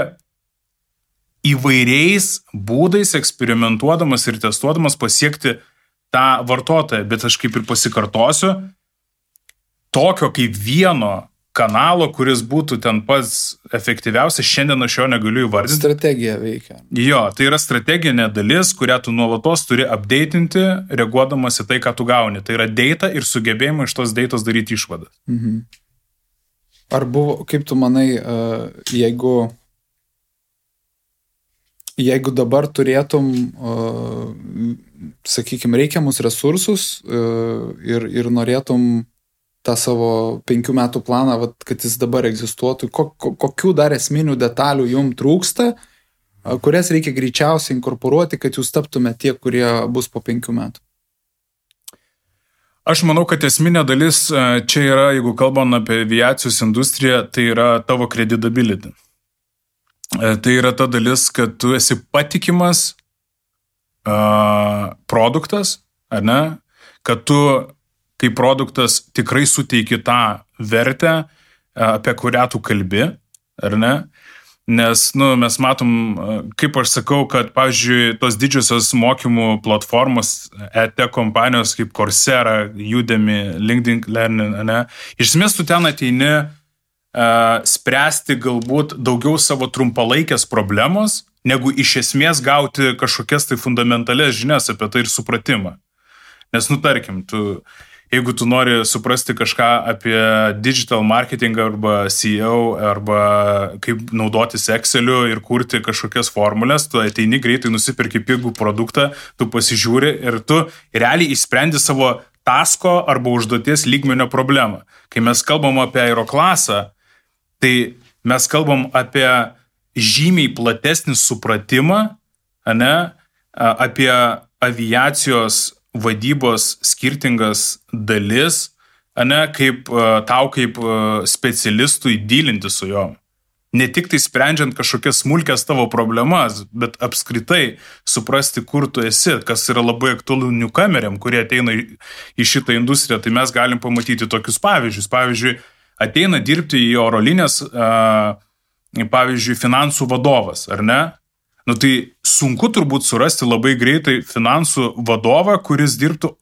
įvairiais būdais eksperimentuodamas ir testuodamas pasiekti tą vartotoją, bet aš kaip ir pasikartosiu, tokio kaip vieno kanalo, kuris būtų ten pats efektyviausias, šiandien aš jo negaliu įvardinti. Strategija veikia. Jo, tai yra strateginė dalis, kurią tu nuolatos turi updateinti, reaguodamas į tai, ką tu gauni. Tai yra data ir sugebėjimai iš tos datos daryti išvadas. Ar buvo, kaip tu manai, jeigu dabar turėtum, sakykime, reikiamus resursus ir norėtum tą savo 5 metų planą, kad jis dabar egzistuotų, kokių dar esminių detalių jums trūksta, kurias reikia greičiausiai inkorporuoti, kad jūs taptume tie, kurie bus po 5 metų? Aš manau, kad esminė dalis čia yra, jeigu kalbam apie aviacijos industriją, tai yra tavo credibility. Tai yra ta dalis, kad tu esi patikimas produktas, ar ne? Kad tu kaip produktas tikrai suteiki tą vertę, apie kurią tu kalbi, ar ne? Nes, mes matom, kaip aš sakau, kad, pavyzdžiui, tos didžiosios mokymų platformos, EdTech kompanijos kaip Coursera, Udemy, LinkedIn Learning, ne? Iš esmės tu ten ateini spręsti galbūt daugiau savo trumpalaikės problemos, negu iš esmės gauti kažkokias tai fundamentalias žinias apie tai ir supratimą. Nes, tarkim, jeigu tu nori suprasti kažką apie digital marketing arba SEO arba kaip naudotis Exceliu ir kurti kažkokias formulės, tu ateini greitai, nusipirki pigų produktą, tu pasižiūri ir tu realiai išsprendi savo tasko arba užduoties lygmenio problemą. Kai mes kalbam apie aeroklasą, tai mes kalbam apie žymiai platesnį supratimą, ne, apie aviacijos vadybos skirtingas dalis, ne, kaip tau kaip specialistui dylinti su jom. Ne tik tai sprendžiant kažkokias smulkias tavo problemas, bet apskritai suprasti, kur tu esi, kas yra labai aktualu newcomeriam, kurie ateina į šitą industriją, tai mes galim pamatyti tokius pavyzdžius. Pavyzdžiui, ateina dirbti į oro linijas, pavyzdžiui, finansų vadovas, ar ne? Tai sunku turbūt surasti labai greitai finansų vadovą, kuris dirbtų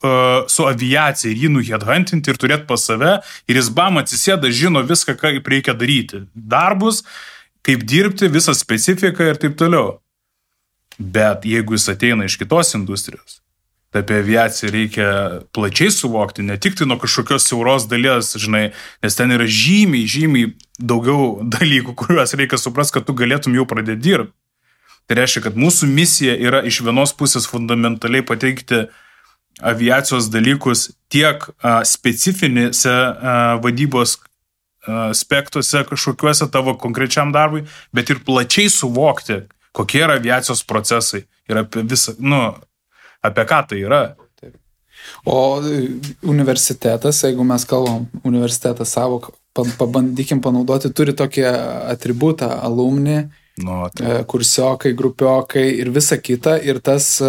su aviacija ir jį nuheadhuntinti ir turėti pas save ir jis atsisėda, žino viską, kaip reikia daryti. Darbus, kaip dirbti, visą specifiką ir taip toliau. Bet jeigu jis ateina iš kitos industrijos, tai apie aviaciją reikia plačiai suvokti, ne tik tai nuo kažkokios siauros dalies, žinai, nes ten yra žymiai daugiau dalykų, kuriuos reikia suprasti, kad tu galėtum jau pradėti dirbti. Tai reiškia, kad mūsų misija yra iš vienos pusės fundamentaliai pateikti aviacijos dalykus tiek specifinėse vadybos aspektuose kažkokiuose tavo konkrečiam darbui, bet ir plačiai suvokti, kokie yra aviacijos procesai ir apie visą, apie ką tai yra. O universitetas, jeigu mes kalbam, universitetas savo, pabandykim panaudoti, turi tokį atributą alumni, kursiokai, grupiokai ir visa kita, ir tas,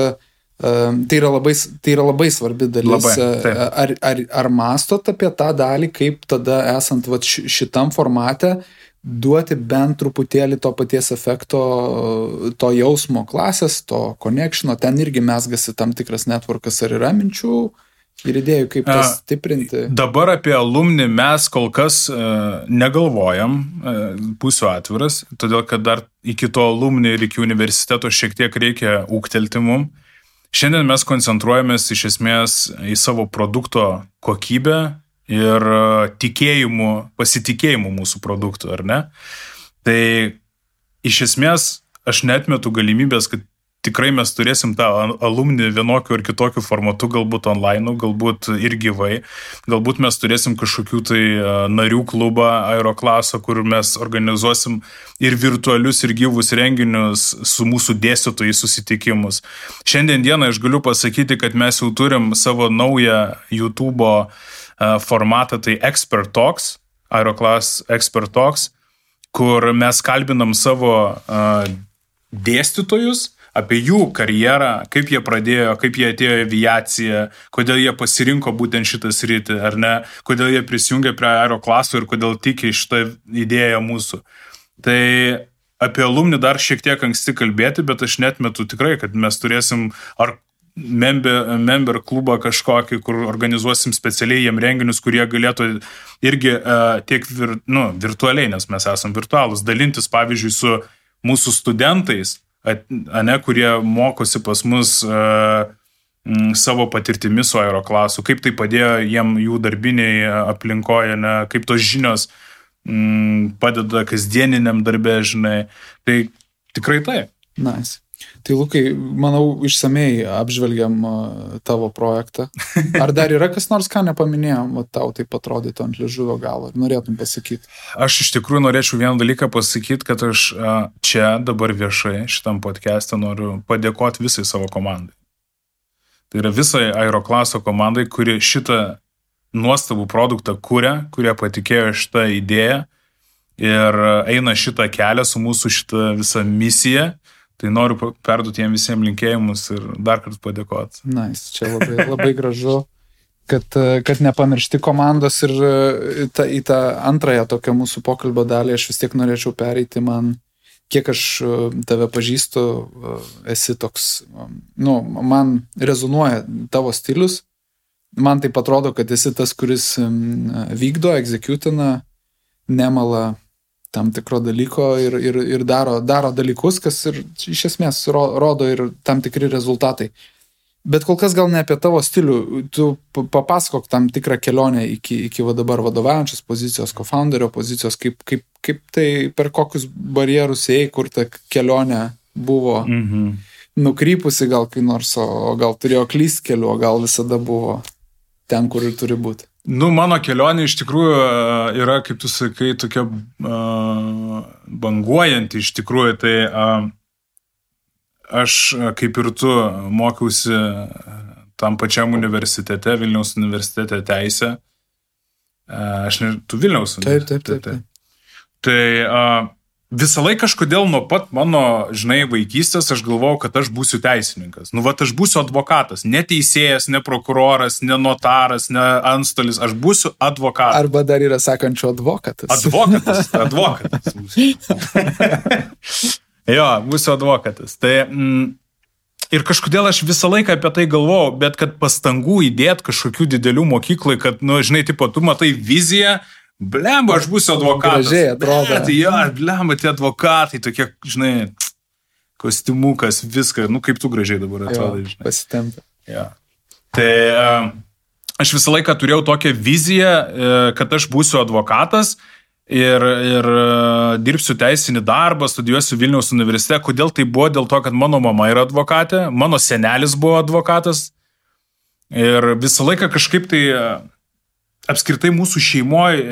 tai yra labai svarbi dalis. Ar mastot apie tą dalį, kaip tada esant šitam formate duoti bent truputėlį to paties efekto, to jausmo klasės, to connectiono, ten irgi mesgasi tam tikras networkas, ar yra minčių ir idėjų, kaip tas stiprinti? Dabar apie alumni mes kol kas negalvojam, būsiu atviras, todėl kad dar iki to alumni ir iki universiteto šiek tiek reikia ūgtelti mum. Šiandien mes koncentruojamės iš esmės į savo produkto kokybę ir pasitikėjimu mūsų produktų, ar ne? Tai iš esmės aš neatmetu galimybės, kad tikrai mes turėsim tą alumni vienokiu ar kitokiu formatu, galbūt online, galbūt ir gyvai, galbūt mes turėsim kažkokių tai narių klubą Aeroklaso, kur mes organizuosim ir virtualius, ir gyvus renginius su mūsų dėstytojai susitikimus. Šiandien dieną aš galiu pasakyti, kad mes jau turim savo naują YouTube'o formatą, tai Expert Talks, Aeroclass Expert Talks, kur mes kalbinam savo dėstytojus apie jų karjerą, kaip jie pradėjo, kaip jie atėjo į aviaciją, kodėl jie pasirinko būtent šitą sritį, ar ne, kodėl jie prisijungė prie Aeroclasso ir kodėl tiki šitą idėją mūsų. Tai apie alumni dar šiek tiek anksti kalbėti, bet aš netmetu tikrai, kad mes turėsim ar member klubą kažkokį, kur organizuosim specialiai jiem renginius, kurie galėtų irgi tiek virtualiai, nes mes esam virtualūs, dalintis, pavyzdžiui, su mūsų studentais, kurie mokosi pas mus savo patirtimi su Aeroclassu, kaip tai padėjo jiem jų darbiniai aplinkoje, kaip tos žinios padeda kasdieniniam darbe, žinai. Tai tikrai tai. Nice. Tai Lukai, manau, išsamei apžvelgiam tavo projektą. Ar dar yra kas nors, ką nepaminėjom, tau taip atrodytų ant liežuvio galo, ir norėtum pasakyti? Aš iš tikrųjų norėčiau vieną dalyką pasakyti, kad aš čia dabar viešai šitam podcast'e noriu padėkoti visai savo komandai. Tai yra visai Aeroclasso komandai, kuri šitą nuostabų produktą kurie patikėjo šitą idėją ir eina šitą kelią su mūsų šitą visą misiją. Tai noriu perduoti jiem visiems linkėjimus ir dar kartą padėkoti. Nice, čia labai gražu, kad nepamiršti komandos ir į tą antrąją tokią mūsų pokalbio dalį aš vis tiek norėčiau pereiti. Kiek aš tave pažįstu, esi toks, man rezonuoja tavo stilius, man taip atrodo, kad esi tas, kuris vykdo, executina, nemala tam tikro dalyko ir daro dalykus, kas ir iš esmės rodo ir tam tikri rezultatai. Bet kol kas gal ne apie tavo stilių. Tu papasakok tam tikrą kelionę iki dabar vadovaujančios pozicijos, co-founderio pozicijos, kaip tai per kokius barjerus ėjai, kur ta kelionė buvo nukrypusi gal kai nors, o gal turėjo klyst keliu, o gal visada buvo ten, kur ir turi būti. Mano kelionė iš tikrųjų yra, kaip tu sakai, tokia banguojanti iš tikrųjų. Tai aš, kaip ir tu, mokiausi tam pačiam universitete, Vilniaus universitete teisę. Tu Vilniaus universitete. Taip. Tai visą laiką kažkodėl nuo pat mano, vaikystės aš galvojau, kad aš būsiu teisininkas. Aš būsiu advokatas. Ne teisėjas, ne prokuroras, ne notaras, ne antstolis. Aš būsiu advokatas. Arba dar yra sakančių advokatas. Advokatas. Jo, būsiu advokatas. Tai ir kažkodėl aš visą laiką apie tai galvojau, bet kad pastangų įdėti kažkokių didelių mokyklai, kad, tu matai viziją, blemba, aš būsiu advokatas. Gražiai atrodo. Blemba, tie advokatai, tokie, kostiumukas, viską, kaip tu gražiai dabar atrodai. Pasitempia. Ja. Tai aš visą laiką turėjau tokią viziją, kad aš būsiu advokatas ir dirbsiu teisinį darbą, studijuosiu Vilniaus universitete. Kodėl tai buvo? Dėl to, kad mano mama yra advokatė, mano senelis buvo advokatas ir visą laiką kažkaip tai apskritai mūsų šeimoje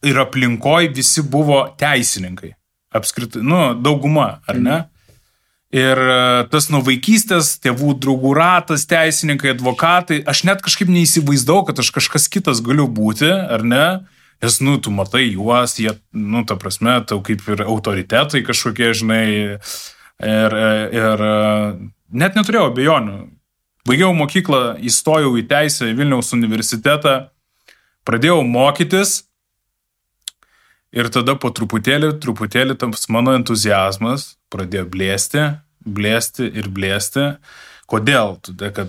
ir aplinkoj visi buvo teisininkai. Apskritai, dauguma, ar ne? Ir tas nuo vaikystės, tėvų draugų ratas, teisininkai, advokatai, aš net kažkaip neįsivaizdau, kad aš kažkas kitas galiu būti, ar ne? Nes, tu matai juos, jie, ta prasme, tau kaip ir autoritetai kažkokie, žinai, ir net neturėjau abejonių. Baigiau mokyklą, įstojau į teisę į Vilniaus universitetą, pradėjau mokytis ir tada po truputėlį tas mano entuziazmas pradėjo blėsti. Kodėl? Todėl, kad,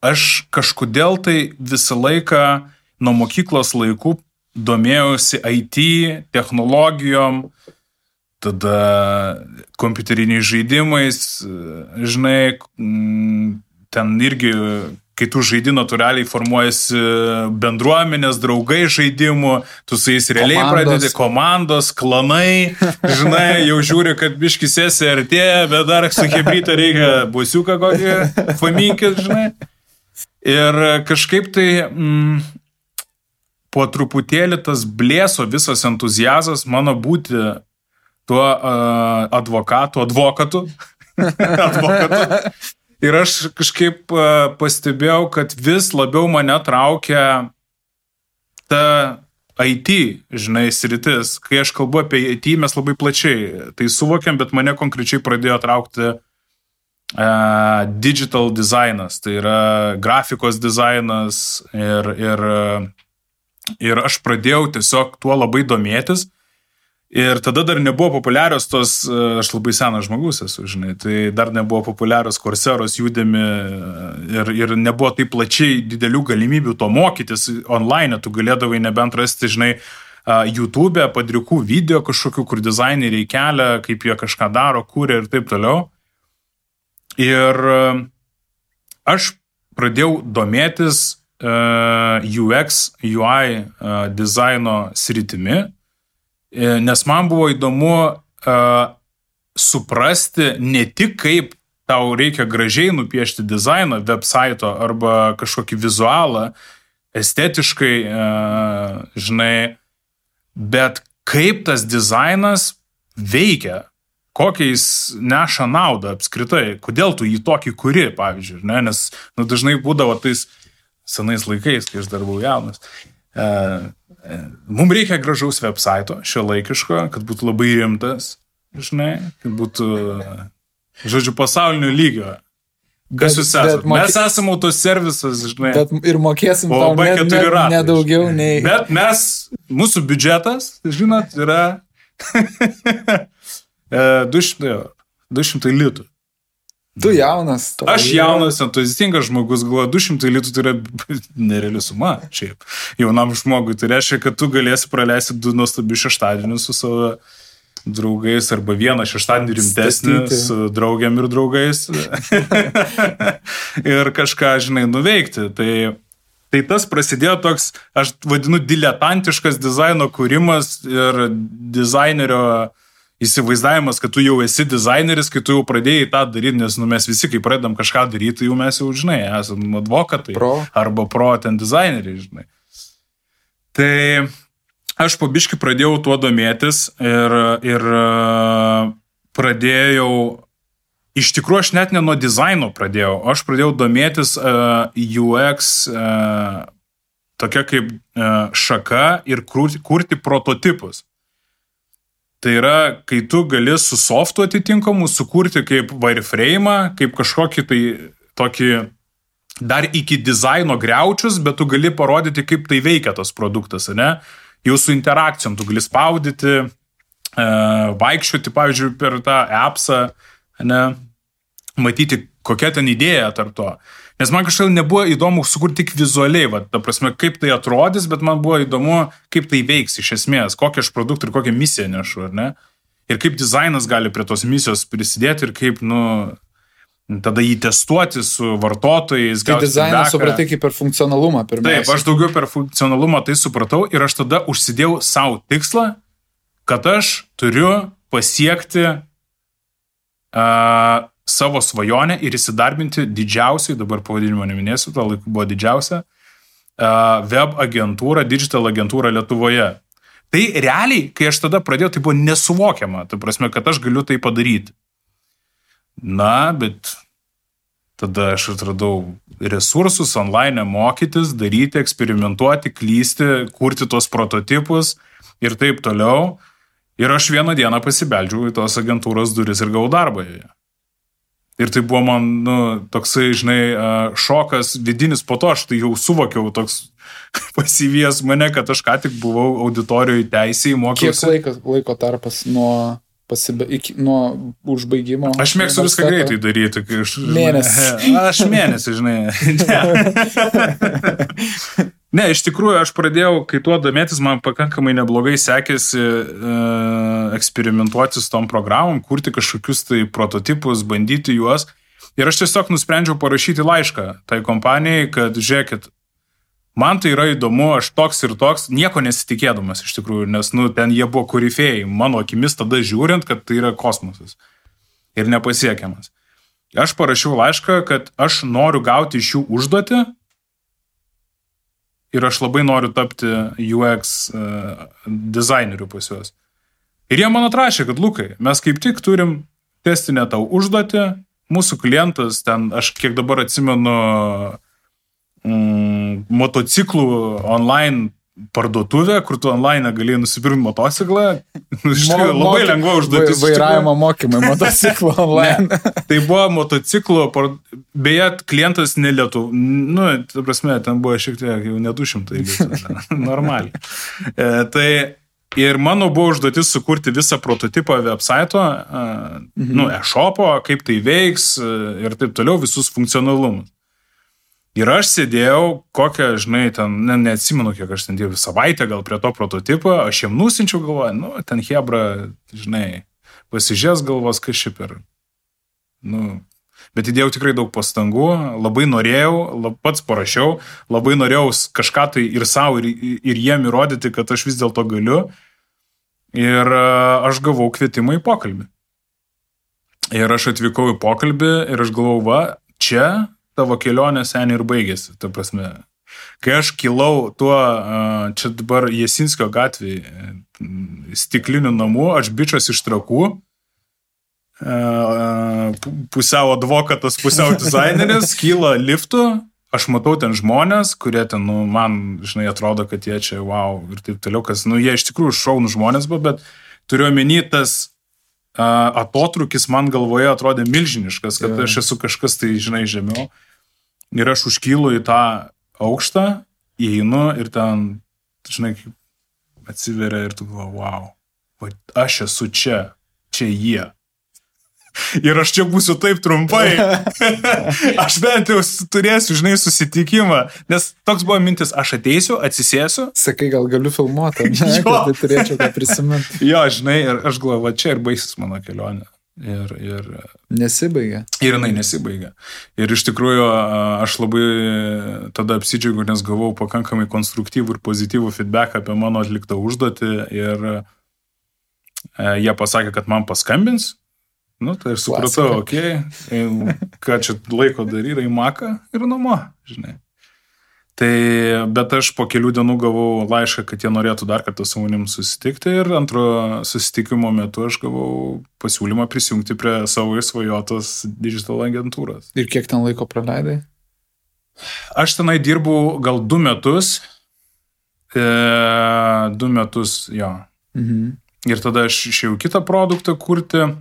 aš kažkodėl tai visą laiką nuo mokyklos laikų domėjausi IT, technologijom, tada kompiuteriniais žaidimais, žinai, ten irgi, kai tu žaidi natūraliai formuojasi bendruomenės, draugai žaidimų, tu su jais realiai pradedi komandos, klanai, žinai, jau žiūri, kad biški sesija artėja, bet dar su hebryta reikia busiuką kokį paminkit, žinai. Ir kažkaip tai po truputėlį tas blėso visas entuziazas mano būti tuo advokatu. Ir aš kažkaip pastebėjau, kad vis labiau mane traukia ta IT, žinai, sritis. Kai aš kalbu apie IT, mes labai plačiai tai suvokiam, bet mane konkrečiai pradėjo traukti digital dizainas, tai yra grafikos dizainas ir aš pradėjau tiesiog tuo labai domėtis. Ir tada dar nebuvo populiarios tos, aš labai senas žmogus esu, žinai, tai dar nebuvo populiarios Courseiros, Udemy ir nebuvo taip plačiai didelių galimybių to mokytis online, tu galėdavai nebent rasti, žinai, YouTube, padrikų video kažkokių, kur dizaineriai kelia, kaip jie kažką daro, kūrė ir taip toliau. Ir aš pradėjau domėtis UX, UI dizaino sritimi, nes man buvo įdomu suprasti ne tik kaip tau reikia gražiai nupiešti dizainą, website'o arba kažkokį vizualą, estetiškai, žinai, bet kaip tas dizainas veikia, kokią jis neša naudą apskritai, kodėl tu jį tokį kuri, pavyzdžiui, ne? Nes dažnai būdavo tais senais laikais, kai aš dar buvau jaunas. Mums reikia gražaus website'o, šiuolaikiško, kad būtų labai rimtas, žinai, kad būtų, žodžiu, pasaulinio lygio. Kas jūs esate? Mes esame autoservisas, žinai. Bet ir mokėsim tau nedaugiau nei... Bet mūsų biudžetas, žinot, yra 200 litų. Tu jaunas. Aš jaunas, entuziastingas žmogus, galvoju, 200 litų tai yra nereali suma, šiaip. Jaunam žmogui tai reiškia, kad tu galėsi praleisti 2 nuostabius šeštadienius su savo draugais arba vieną šeštadienį rimtesnį su draugiam ir draugais ir kažką, žinai, nuveikti. Tai tas prasidėjo toks, aš vadinu, diletantiškas dizaino kūrimas ir dizainerio įsivaizdavimas, kad tu jau esi dizaineris, kai tu jau pradėjai tą daryti, nes mes visi, kai pradedam kažką daryti, tai jau mes jau, žinai, esame advokatai arba ten dizaineriai, žinai. Tai aš po biškį pradėjau tuo domėtis ir pradėjau, iš tikrųjų aš net ne nuo dizaino pradėjau, aš pradėjau domėtis UX tokia kaip šaka ir kurti prototipus. Tai yra, kai tu gali su softu atitinkamu sukurti kaip wireframe'ą, kaip kažkokį tai tokį dar iki dizaino griaučius, bet tu gali parodyti, kaip tai veikia tas produktas, ne? Jau su interakcijom tu gali spaudyti, vaikščioti, pavyzdžiui, per tą appsą, ne? Matyti, kokia ten idėja tarp to. Nes man kažkaip nebuvo įdomu sukurti tik vizualiai, ta prasme, kaip tai atrodys, bet man buvo įdomu, kaip tai veiks iš esmės, kokią aš produktą ir kokią misiją nešu, ar ne? Ir kaip dizainas gali prie tos misijos prisidėti ir kaip, tada jį testuoti su vartotojais. Tai dizainą supratai kaip per funkcionalumą pirmiausia. Taip, aš daugiau per funkcionalumą tai supratau ir aš tada užsidėjau savo tikslą, kad aš turiu pasiekti savo svajonę ir įsidarbinti didžiausiai, dabar pavadinimo neminėsiu, to laiku buvo didžiausia, web agentūrą, digital agentūrą Lietuvoje. Tai realiai, kai aš tada pradėjau, tai buvo nesuvokiama. Tai prasme, kad aš galiu tai padaryti. Na, bet tada aš atradau resursus online mokytis, daryti, eksperimentuoti, klysti, kurti tos prototipus ir taip toliau. Ir aš vieną dieną pasibeldžiau į tos agentūros duris ir gavau darbą joje. Ir tai buvo man, toksai, žinai, šokas vidinis, po to aš tai jau suvokiau toks pasivijęs mane, kad aš ką tik buvau auditorijoje teisėjai, mokiausi. Kiek laiko tarpas nuo užbaigimo? Aš mėgstu viską greitai daryti. Mėnesį. Aš mėnesį, žinai. Ne, iš tikrųjų, aš pradėjau, kai tuo domėtis, man pakankamai neblogai sekėsi eksperimentuoti su tom programom, kurti kažkokius tai prototipus, bandyti juos. Ir aš tiesiog nusprendžiau parašyti laišką tai kompanijai, kad žiūrėkit, man tai yra įdomu, aš toks ir toks, nieko nesitikėdamas iš tikrųjų, nes ten jie buvo korifėjai, mano akimis tada žiūrint, kad tai yra kosmosas ir nepasiekiamas. Aš parašiau laišką, kad aš noriu gauti iš jų užduotį ir aš labai noriu tapti UX dizaineriu pas juos. Ir jie man atrašė, kad Lukai, mes kaip tik turim testinę tau užduotį, mūsų klientas ten, aš kiek dabar atsimenu, motociklų online parduotuvę, kur tu online galėjai nusipirkti motociklą. Labai lengva užduotis. Vairavimo mokymai motociklų online. Tai buvo motociklų, beje, klientas ne Lietuvos, ta prasme, ten buvo šiek tiek jau ne 200 litų, normaliai. Tai ir mano buvo užduotis sukurti visą prototipą website'o, e-shopo, kaip tai veiks ir taip toliau, visus funkcionalumus. Ir aš sėdėjau, kokią, žinai, ten, neatsimenu, kiek aš ten dėjau savaitę gal prie to prototipo, aš jiem nusinčiau galvoju, ten hebra, žinai, pasižies galvos, kas šiaip ir, bet įdėjau tikrai daug pastangų, labai norėjau, pats parašiau, labai norėjau kažką tai ir savo, ir jiem įrodyti, kad aš vis dėlto galiu, ir aš gavau kvietimą į pokalbį. Ir aš atvykau į pokalbį ir aš galvau, čia tavo kelionė seniai ir baigėsi, ta prasme. Kai aš kilau tuo, čia dabar Jasinskio gatvėje, stiklinių namų, aš bičas iš Trakų, pusiau advokatas, pusiau dizaineris, kyla liftu, aš matau ten žmonės, kurie ten, man, žinai, atrodo, kad jie čia, wow, ir taip toliau, kas, jie iš tikrųjų šaunų žmonės buvo, bet turiu omeny tas atotrukis man galvoje atrodė milžiniškas, kad aš esu kažkas tai, žinai, žemiau. Ir aš užkylu į tą aukštą, įeinu ir ten, žinai, atsiveria ir tu galvoji, wow, aš esu čia jie. Ir aš čia būsiu taip trumpai. Aš bent jau turėsiu, žinai, susitikimą. Nes toks buvo mintis, aš ateisiu, atsisėsiu. Sakai, gal galiu filmuoti, kad tai turėčiau ką prisiminti. Jo, žinai, ir aš galvoju, čia ir baigsis mano kelionė. Ir nesibaigia. Ir jinai nesibaigia. Ir iš tikrųjų aš labai tada apsidžiaugiau, nes gavau pakankamai konstruktyvų ir pozityvų feedback apie mano atliktą užduotį ir jie pasakė, kad man paskambins. Tai aš supratau, ką čia laiko daryti, į Maką ir namo, žinai. Bet aš po kelių dienų gavau laišką, kad jie norėtų dar kartą su manim susitikti ir antro susitikimo metu aš gavau pasiūlymą prisijungti prie savo įsvajotos digital agentūros. Ir kiek ten laiko praleidai? Aš tenai dirbau gal 2 metus. 2 metus, jo. Mhm. Ir tada aš išėjau kitą produktą kurti,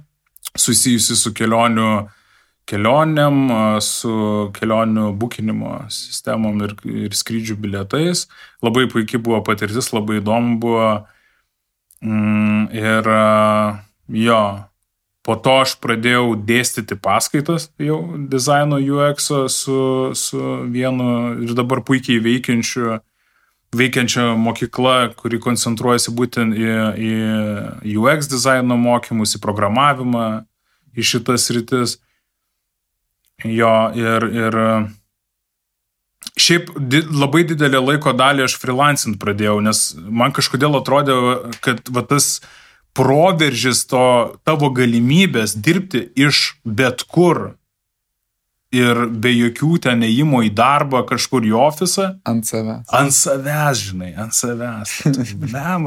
susijusi su kelionėm, su kelionių bukinimo sistemom ir skrydžių bilietais. Labai puikiai buvo patirtis, labai įdomu buvo. Ir jo, po to aš pradėjau dėstyti paskaitas jau dizaino UX-o su vienu ir dabar puikiai veikiančia mokykla, kuri koncentruojasi būtent į UX dizaino mokymus, į programavimą, į šitas rytis. Jo, ir šiaip labai didelę laiko dalį aš freelancint pradėjau, nes man kažkodėl atrodė, kad tas proveržis to tavo galimybės dirbti iš bet kur ir be jokių ten ėjimo į darbą kažkur į ofisą. Ant savęs. Ant savęs, žinai, ant savęs.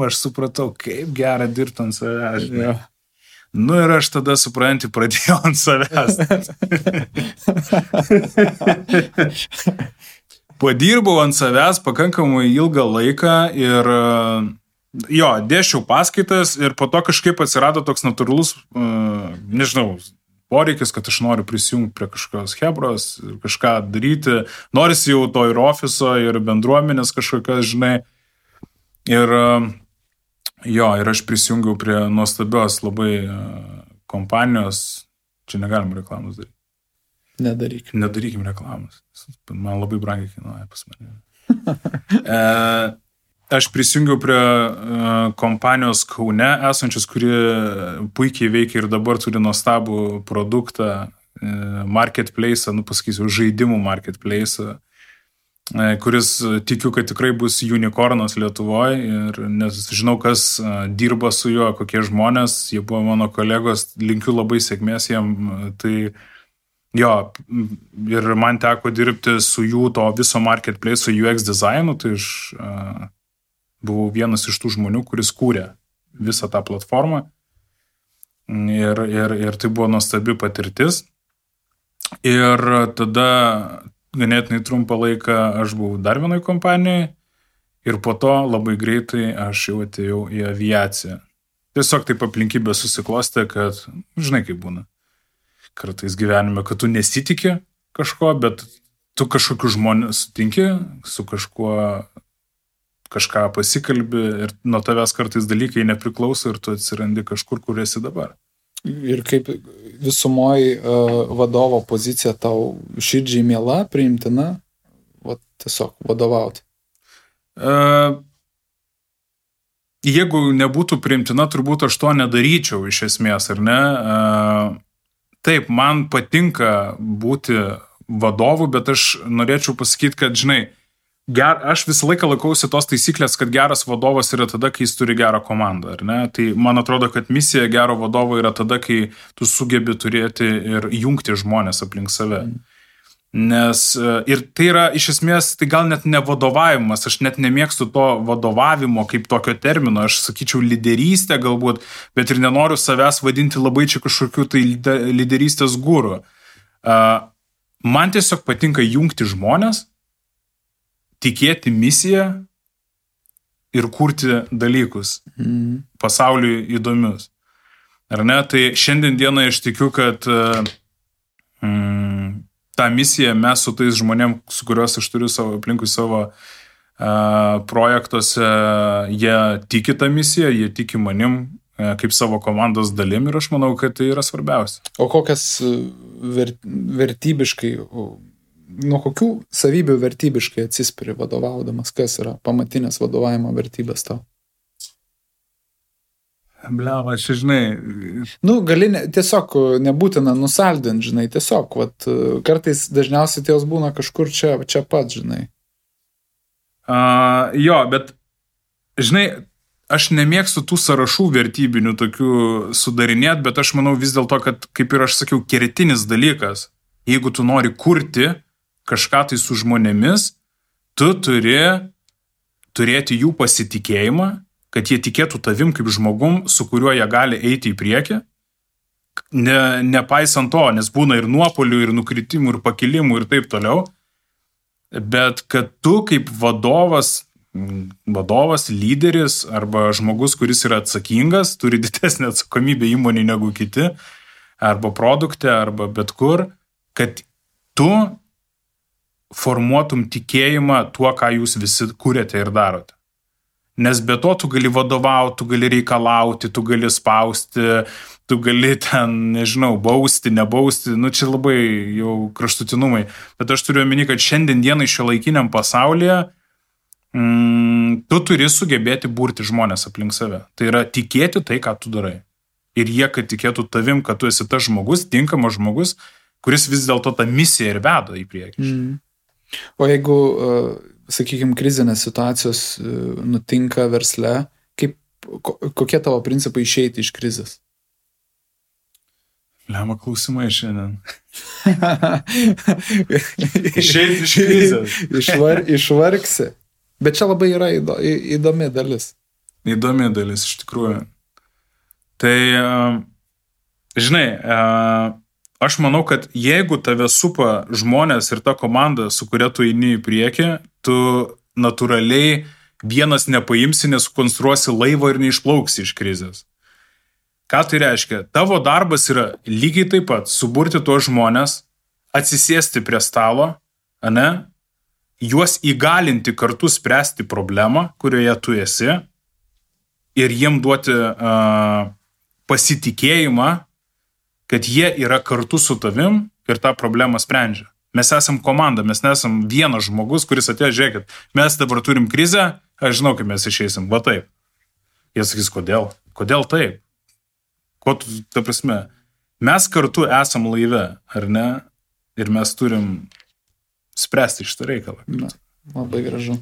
Aš supratau, kaip gera dirbti ant savęs, žinai. Ja. Nu ir aš tada, supranti, pradėjau ant savęs. Padirbau ant savęs pakankamai ilgą laiką ir dėsčiau paskaitas ir po to kažkaip atsirado toks natūralus, nežinau, poreikis, kad aš noriu prisijungti prie kažkokios hebros, kažką daryti. Norisi jau to ir ofiso, ir bendruomenės kažkokios, žinai. Ir aš prisijungiau prie nuostabios labai kompanijos. Čia negalim reklamos daryti. Nedarykim reklamos. Man labai brangiai kainuoja pas mane. Aš prisijungiau prie kompanijos Kaune esančios, kuri puikiai veikia ir dabar turi nuostabų produktą, marketplace, pasakysiu, žaidimų marketplace, kuris tikiu, kad tikrai bus unicornas Lietuvoje ir nes žinau, kas dirba su juo, kokie žmonės, jie buvo mano kolegos, linkiu labai sėkmės jiem, tai ir man teko dirbti su jų to viso marketplace, su UX dizainu, tai aš buvau vienas iš tų žmonių, kuris kūrė visą tą platformą ir tai buvo nuostabi patirtis. Ir tada ganėtinai trumpą laiką aš buvau dar vienoj kompanijai ir po to labai greitai aš jau atėjau į aviaciją. Tiesiog taip aplinkybė susiklostė, kad, žinai kaip būna, kartais gyvenime, kad tu nesitiki kažko, bet tu kažkokių žmonių sutinki, su kažką pasikalbi ir nuo tavęs kartais dalykai nepriklauso ir tu atsirandi kažkur, kur esi dabar. Ir kaip visumoji vadovo pozicija tau širdžiai miela, priimtina, tiesiog vadovauti? Jeigu nebūtų priimtina, turbūt aš to nedaryčiau iš esmės, ar ne? Taip, man patinka būti vadovu, bet aš norėčiau pasakyti, kad, žinai, aš visą laiką laikausi tos taisyklės, kad geras vadovas yra tada, kai jis turi gerą komandą, ar ne? Tai man atrodo, kad misija gero vadovo yra tada, kai tu sugebi turėti ir jungti žmonės aplink save. Nes ir tai yra iš esmės, tai gal net ne vadovavimas, aš net nemėgstu to vadovavimo kaip tokio termino, aš sakyčiau lyderystę galbūt, bet ir nenoriu savęs vadinti labai čia kažkokiu tai lyderystės guru. Man tiesiog patinka jungti žmonės, tikėti misiją ir kurti dalykus pasauliui įdomius. Ar ne? Tai šiandien dieną aš tikiu, kad tą misiją mes su tais žmonėm, su kuriuos aš turiu aplinkui savo projektuose, jie tiki tą misiją, jie tiki manim kaip savo komandos dalim ir aš manau, kad tai yra svarbiausia. O kokias vertybiškai, nuo kokių savybių vertybiškai atsispiri vadovaudamas, kas yra pamatinės vadovavimo vertybės tau? Bliava, čia žinai. Gali tiesiog nebūtina nusaldinti, žinai, tiesiog, kartais dažniausiai jos būna kažkur čia pat, žinai. Bet, žinai, aš nemėgstu tų sąrašų vertybinių tokių sudarinėt, bet aš manau vis dėlto, kad, kaip ir aš sakiau, kertinis dalykas, jeigu tu nori kurti kažką tai su žmonėmis, tu turi turėti jų pasitikėjimą, kad jie tikėtų tavim kaip žmogum, su kuriuo jie gali eiti į priekį, nepaisant to, nes būna ir nuopolių, ir nukritimų, ir pakilimų, ir taip toliau, bet kad tu kaip vadovas, lyderis arba žmogus, kuris yra atsakingas, turi didesnę atsakomybę įmonį negu kiti, arba produkte, arba bet kur, kad tu formuotum tikėjimą tuo, ką jūs visi kūrėte ir darote. Nes be to tu gali vadovauti, tu gali reikalauti, tu gali spausti, tu gali ten, nežinau, bausti, nebausti, čia labai jau kraštutinumai. Bet aš turiu omeny, kad šiandien dienai šiuolaikiniam pasaulyje tu turi sugebėti burti žmonės aplink save. Tai yra tikėti tai, ką tu darai. Ir jie, kad tikėtų tavim, kad tu esi tas žmogus, tinkamas žmogus, kuris vis dėlto tą misiją ir veda į priekį. O jeigu, sakykime, krizinės situacijos nutinka versle, kokie tavo principai išeiti iš krizės? Lemą klausimai šiandien. Išeiti iš krizės. Išvargsi. Bet čia labai yra įdomi dalis. Įdomi dalis, iš tikrųjų. Tai, žinai, aš manau, kad jeigu tave supa žmonės ir ta komanda, su kuria tu eini į priekį, tu natūraliai vienas nepaimsi, nesukonstruosi laivo ir neišplauksi iš krizės. Ką tai reiškia? Tavo darbas yra lygiai taip pat suburti tuos žmonės, atsisėsti prie stalo, ane, juos įgalinti kartu spręsti problemą, kurioje tu esi, ir jiem duoti pasitikėjimą, kad jie yra kartu su tavim ir tą problemą sprendžia. Mes esam komanda, mes nesam vienas žmogus, kuris atėjo, žiūrėkit, mes dabar turim krizę, aš žinau, kaip mes išeisim, va taip. Jie sakys, kodėl? Kodėl taip? Ko tu, ta prasme, mes kartu esam laive, ar ne? Ir mes turim spręsti šitą reikalą. Na, labai gražu.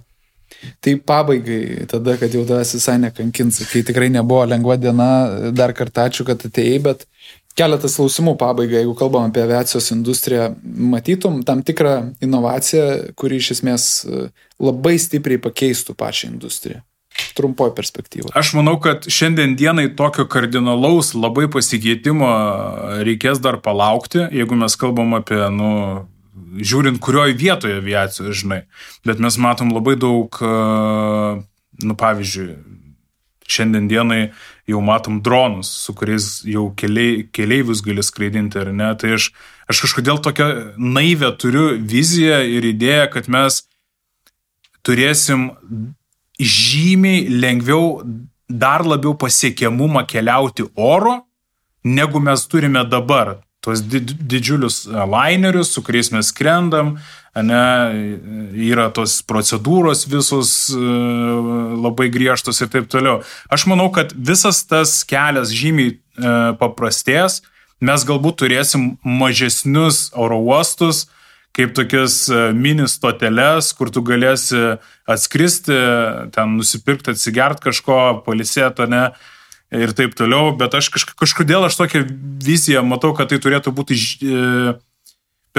Tai pabaigai, tada, kad jau tavęs visai nekankins, kai tikrai nebuvo lengva diena, dar kartą ačiū, kad atėjai, bet keletas klausimų pabaigai, jeigu kalbam apie aviacijos industriją, matytum tam tikrą inovaciją, kuri iš esmės labai stipriai pakeistų pačią industriją. Trumpoj perspektyvoje. Aš manau, kad šiandien dienai tokio kardinalaus labai pasikeitimo reikės dar palaukti, jeigu mes kalbam apie, žiūrint, kurioje vietoje aviacijos, žinai. Bet mes matom labai daug, pavyzdžiui, šiandien dienai jau matom dronus, su kuriais jau keleivius gali skraidinti, ar ne. Tai aš kažkodėl tokią naivę turiu viziją ir idėją, kad mes turėsim žymiai lengviau, dar labiau pasiekiamumą keliauti oro, negu mes turime dabar. Tuos didžiulius lainerius, su kuriais mes skrendam, ane, yra tos procedūros visos labai griežtos ir taip toliau. Aš manau, kad visas tas kelias žymiai paprastės, mes galbūt turėsim mažesnius oro uostus, kaip tokias mini stoteles, kur tu galėsi atskristi, ten nusipirkti, atsigert kažko, pailsėti, ne, ir taip toliau, bet aš kažkodėl tokią viziją matau, kad tai turėtų būti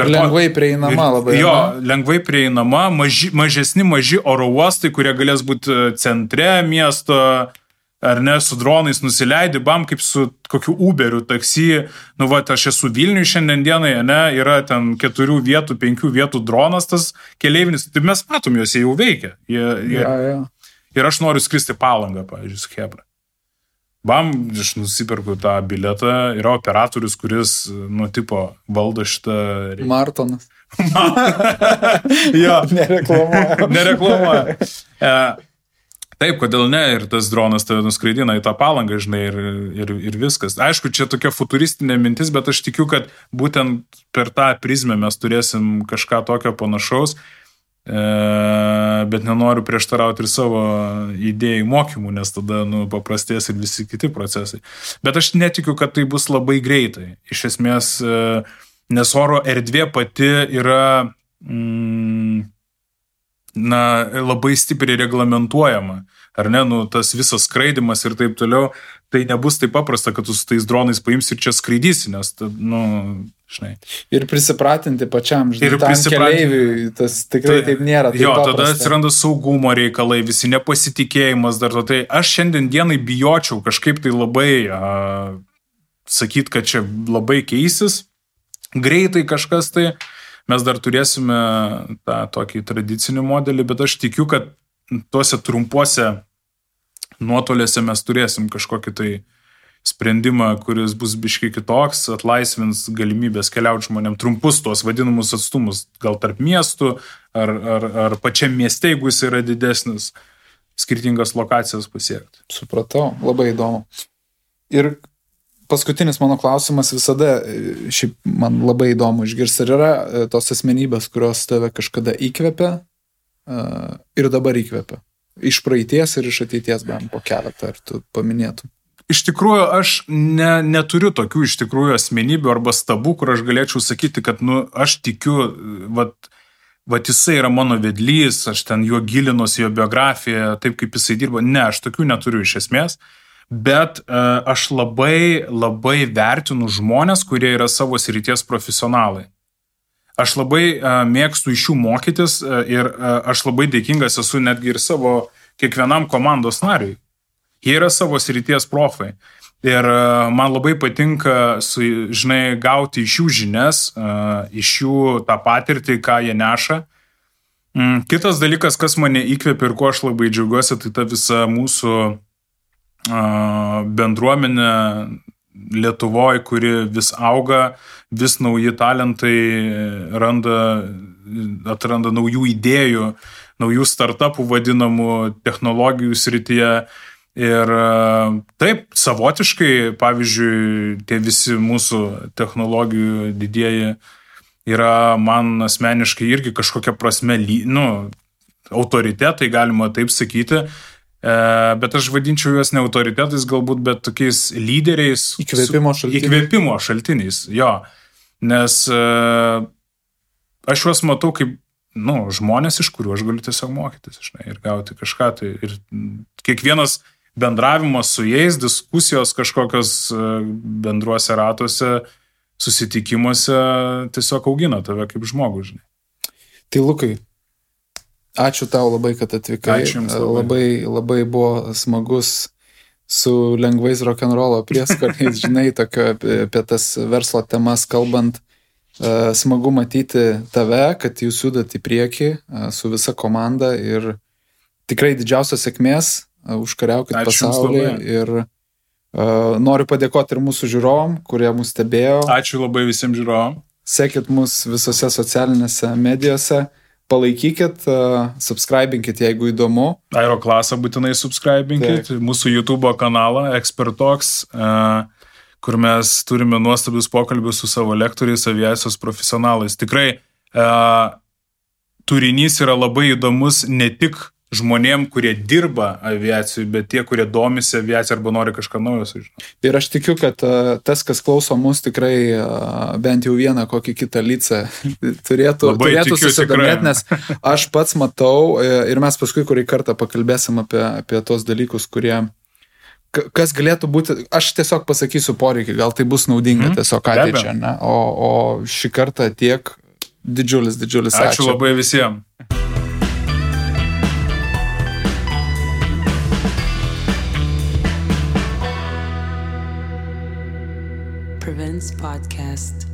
lengvai prieinama labai. Jo, lengvai prieinama, maži oro uostai, kurie galės būti centre miesto, ar ne, su dronais nusileidi, bam, kaip su kokiu Uberiu, taksi, aš esu Vilniui šiandien dienai, ne, yra ten 4 vietų, 5 vietų dronas tas keleivinis, tai mes matom, juos jau veikia. Ir aš noriu skristi Palangą, pavyzdžiui, su Hebra. Bam, aš nusipirku tą biletą, yra operatorius, kuris, tipo, valdo šitą... Martonas. Jo. Nereklamuoja. Nereklamuoja. Taip, kodėl ne, ir tas dronas tave nuskraidina į tą Palangą, žinai, ir viskas. Aišku, čia tokia futuristinė mintis, bet aš tikiu, kad būtent per tą prizmę mes turėsim kažką tokio panašaus, bet nenoriu prieštarauti ir savo idėjų mokymų, nes tada paprastės ir visi kiti procesai. Bet aš netikiu, kad tai bus labai greitai. Iš esmės, nes oro erdvė pati yra labai stipriai reglamentuojama, ar ne, tas visas skraidimas ir taip toliau, tai nebus taip paprasta, kad tu su tais dronais paimsi ir čia skraidysi, nes, žinai. Ir prisipratinti pačiam, žinai, tam keleiviui, tas tikrai taip nėra. Taip paprasta. Tada atsiranda saugumo reikalai, visi nepasitikėjimas dar to. Tai aš šiandien dienai bijočiau kažkaip tai labai sakyti, kad čia labai keisis, greitai kažkas tai. Mes dar turėsime tą tokį tradicinį modelį, bet aš tikiu, kad tuose trumpuose nuotoliuose mes turėsim kažkokį tai sprendimą, kuris bus biškai kitoks, atlaisvins galimybės keliauti žmonėm trumpus tuos vadinamus atstumus, gal tarp miestų, ar pačiam mieste, jeigu jis yra didesnis, skirtingas lokacijas pasiekti. Supratau, labai įdomu. Ir paskutinis mano klausimas visada, šiaip man labai įdomu išgirsti, ar yra tos asmenybės, kurios tave kažkada įkvepia ir dabar įkvepia. Iš praeities ir iš ateities, bent po keletą, ar tu paminėtum. Iš tikrųjų, aš neturiu tokių iš tikrųjų asmenybių arba stabų, kur aš galėčiau sakyti, kad aš tikiu, vat jisai yra mano vedlys, aš ten juo gilinuosi, jo biografiją, taip kaip jisai dirbo. Ne, aš tokių neturiu iš esmės. bet aš labai vertinu žmonės, kurie yra savo srities profesionalai. Aš labai mėgstu iš jų mokytis ir aš labai dėkingas esu netgi ir savo kiekvienam komandos nariui. Jie yra savo srities profai. Ir man labai patinka, gauti iš jų žinias, iš jų tą patirtį, ką jie neša. Kitas dalykas, kas mane įkvėpia ir ko aš labai džiaugiuosi, tai ta visa mūsų bendruomenė Lietuvoje, kuri vis auga, vis nauji talentai atranda naujų idėjų, naujų startupų vadinamų technologijų srityje. Ir taip, savotiškai, pavyzdžiui, tie visi mūsų technologijų didieji yra man asmeniškai irgi kažkokia prasme, autoritetai, galima taip sakyti, bet aš vadinčiau juos ne autoritetais galbūt, bet tokiais lyderiais. Įkvėpimo šaltiniais, jo. Nes aš juos matau kaip žmonės, iš kurių aš galiu tiesiog mokytis, ir gauti kažką. Tai ir kiekvienas bendravimas su jais, diskusijos kažkokios bendruose ratuose, susitikimuose tiesiog augina tave kaip žmogų, Tai Lukai, ačiū tau labai, kad atvykai. Ačiū jums labai. Labai buvo smagus su lengvais rock'n'rollo prieskoniais, tokio apie tas verslo temas kalbant. Smagu matyti tave, kad jūs judat į priekį su visa komanda ir tikrai didžiausios sėkmės, užkariaukit pasaulį ir noriu padėkoti ir mūsų žiūrovom, kurie mus stebėjo. Ačiū labai visiems žiūrovom. Sekit mus visose socialinėse medijose, palaikykit, subscribinkit, jeigu įdomu. Aeroklasą būtinai subscribinkit, mūsų YouTube kanalą Expert Talks, kur mes turime nuostabius pokalbius su savo lektoriais, aviacijos profesionalais. Tikrai turinys yra labai įdomus ne tik žmonėm, kurie dirba aviacijai, bet tie, kurie domisi aviaciją arba nori kažką naujo sužinoti. Ir aš tikiu, kad tas, kas klauso mus, tikrai bent jau vieną kokį kitą licą turėtų susidomėti, nes aš pats matau ir mes paskui kurį kartą pakalbėsim apie tos dalykus, kurie kas galėtų būti, aš tiesiog pasakysiu poreikį, gal tai bus naudinga tiesiog ateičiai, ne? O šį kartą tiek didžiulis ačiū. Ačiū labai visiems. Prevents Podcast.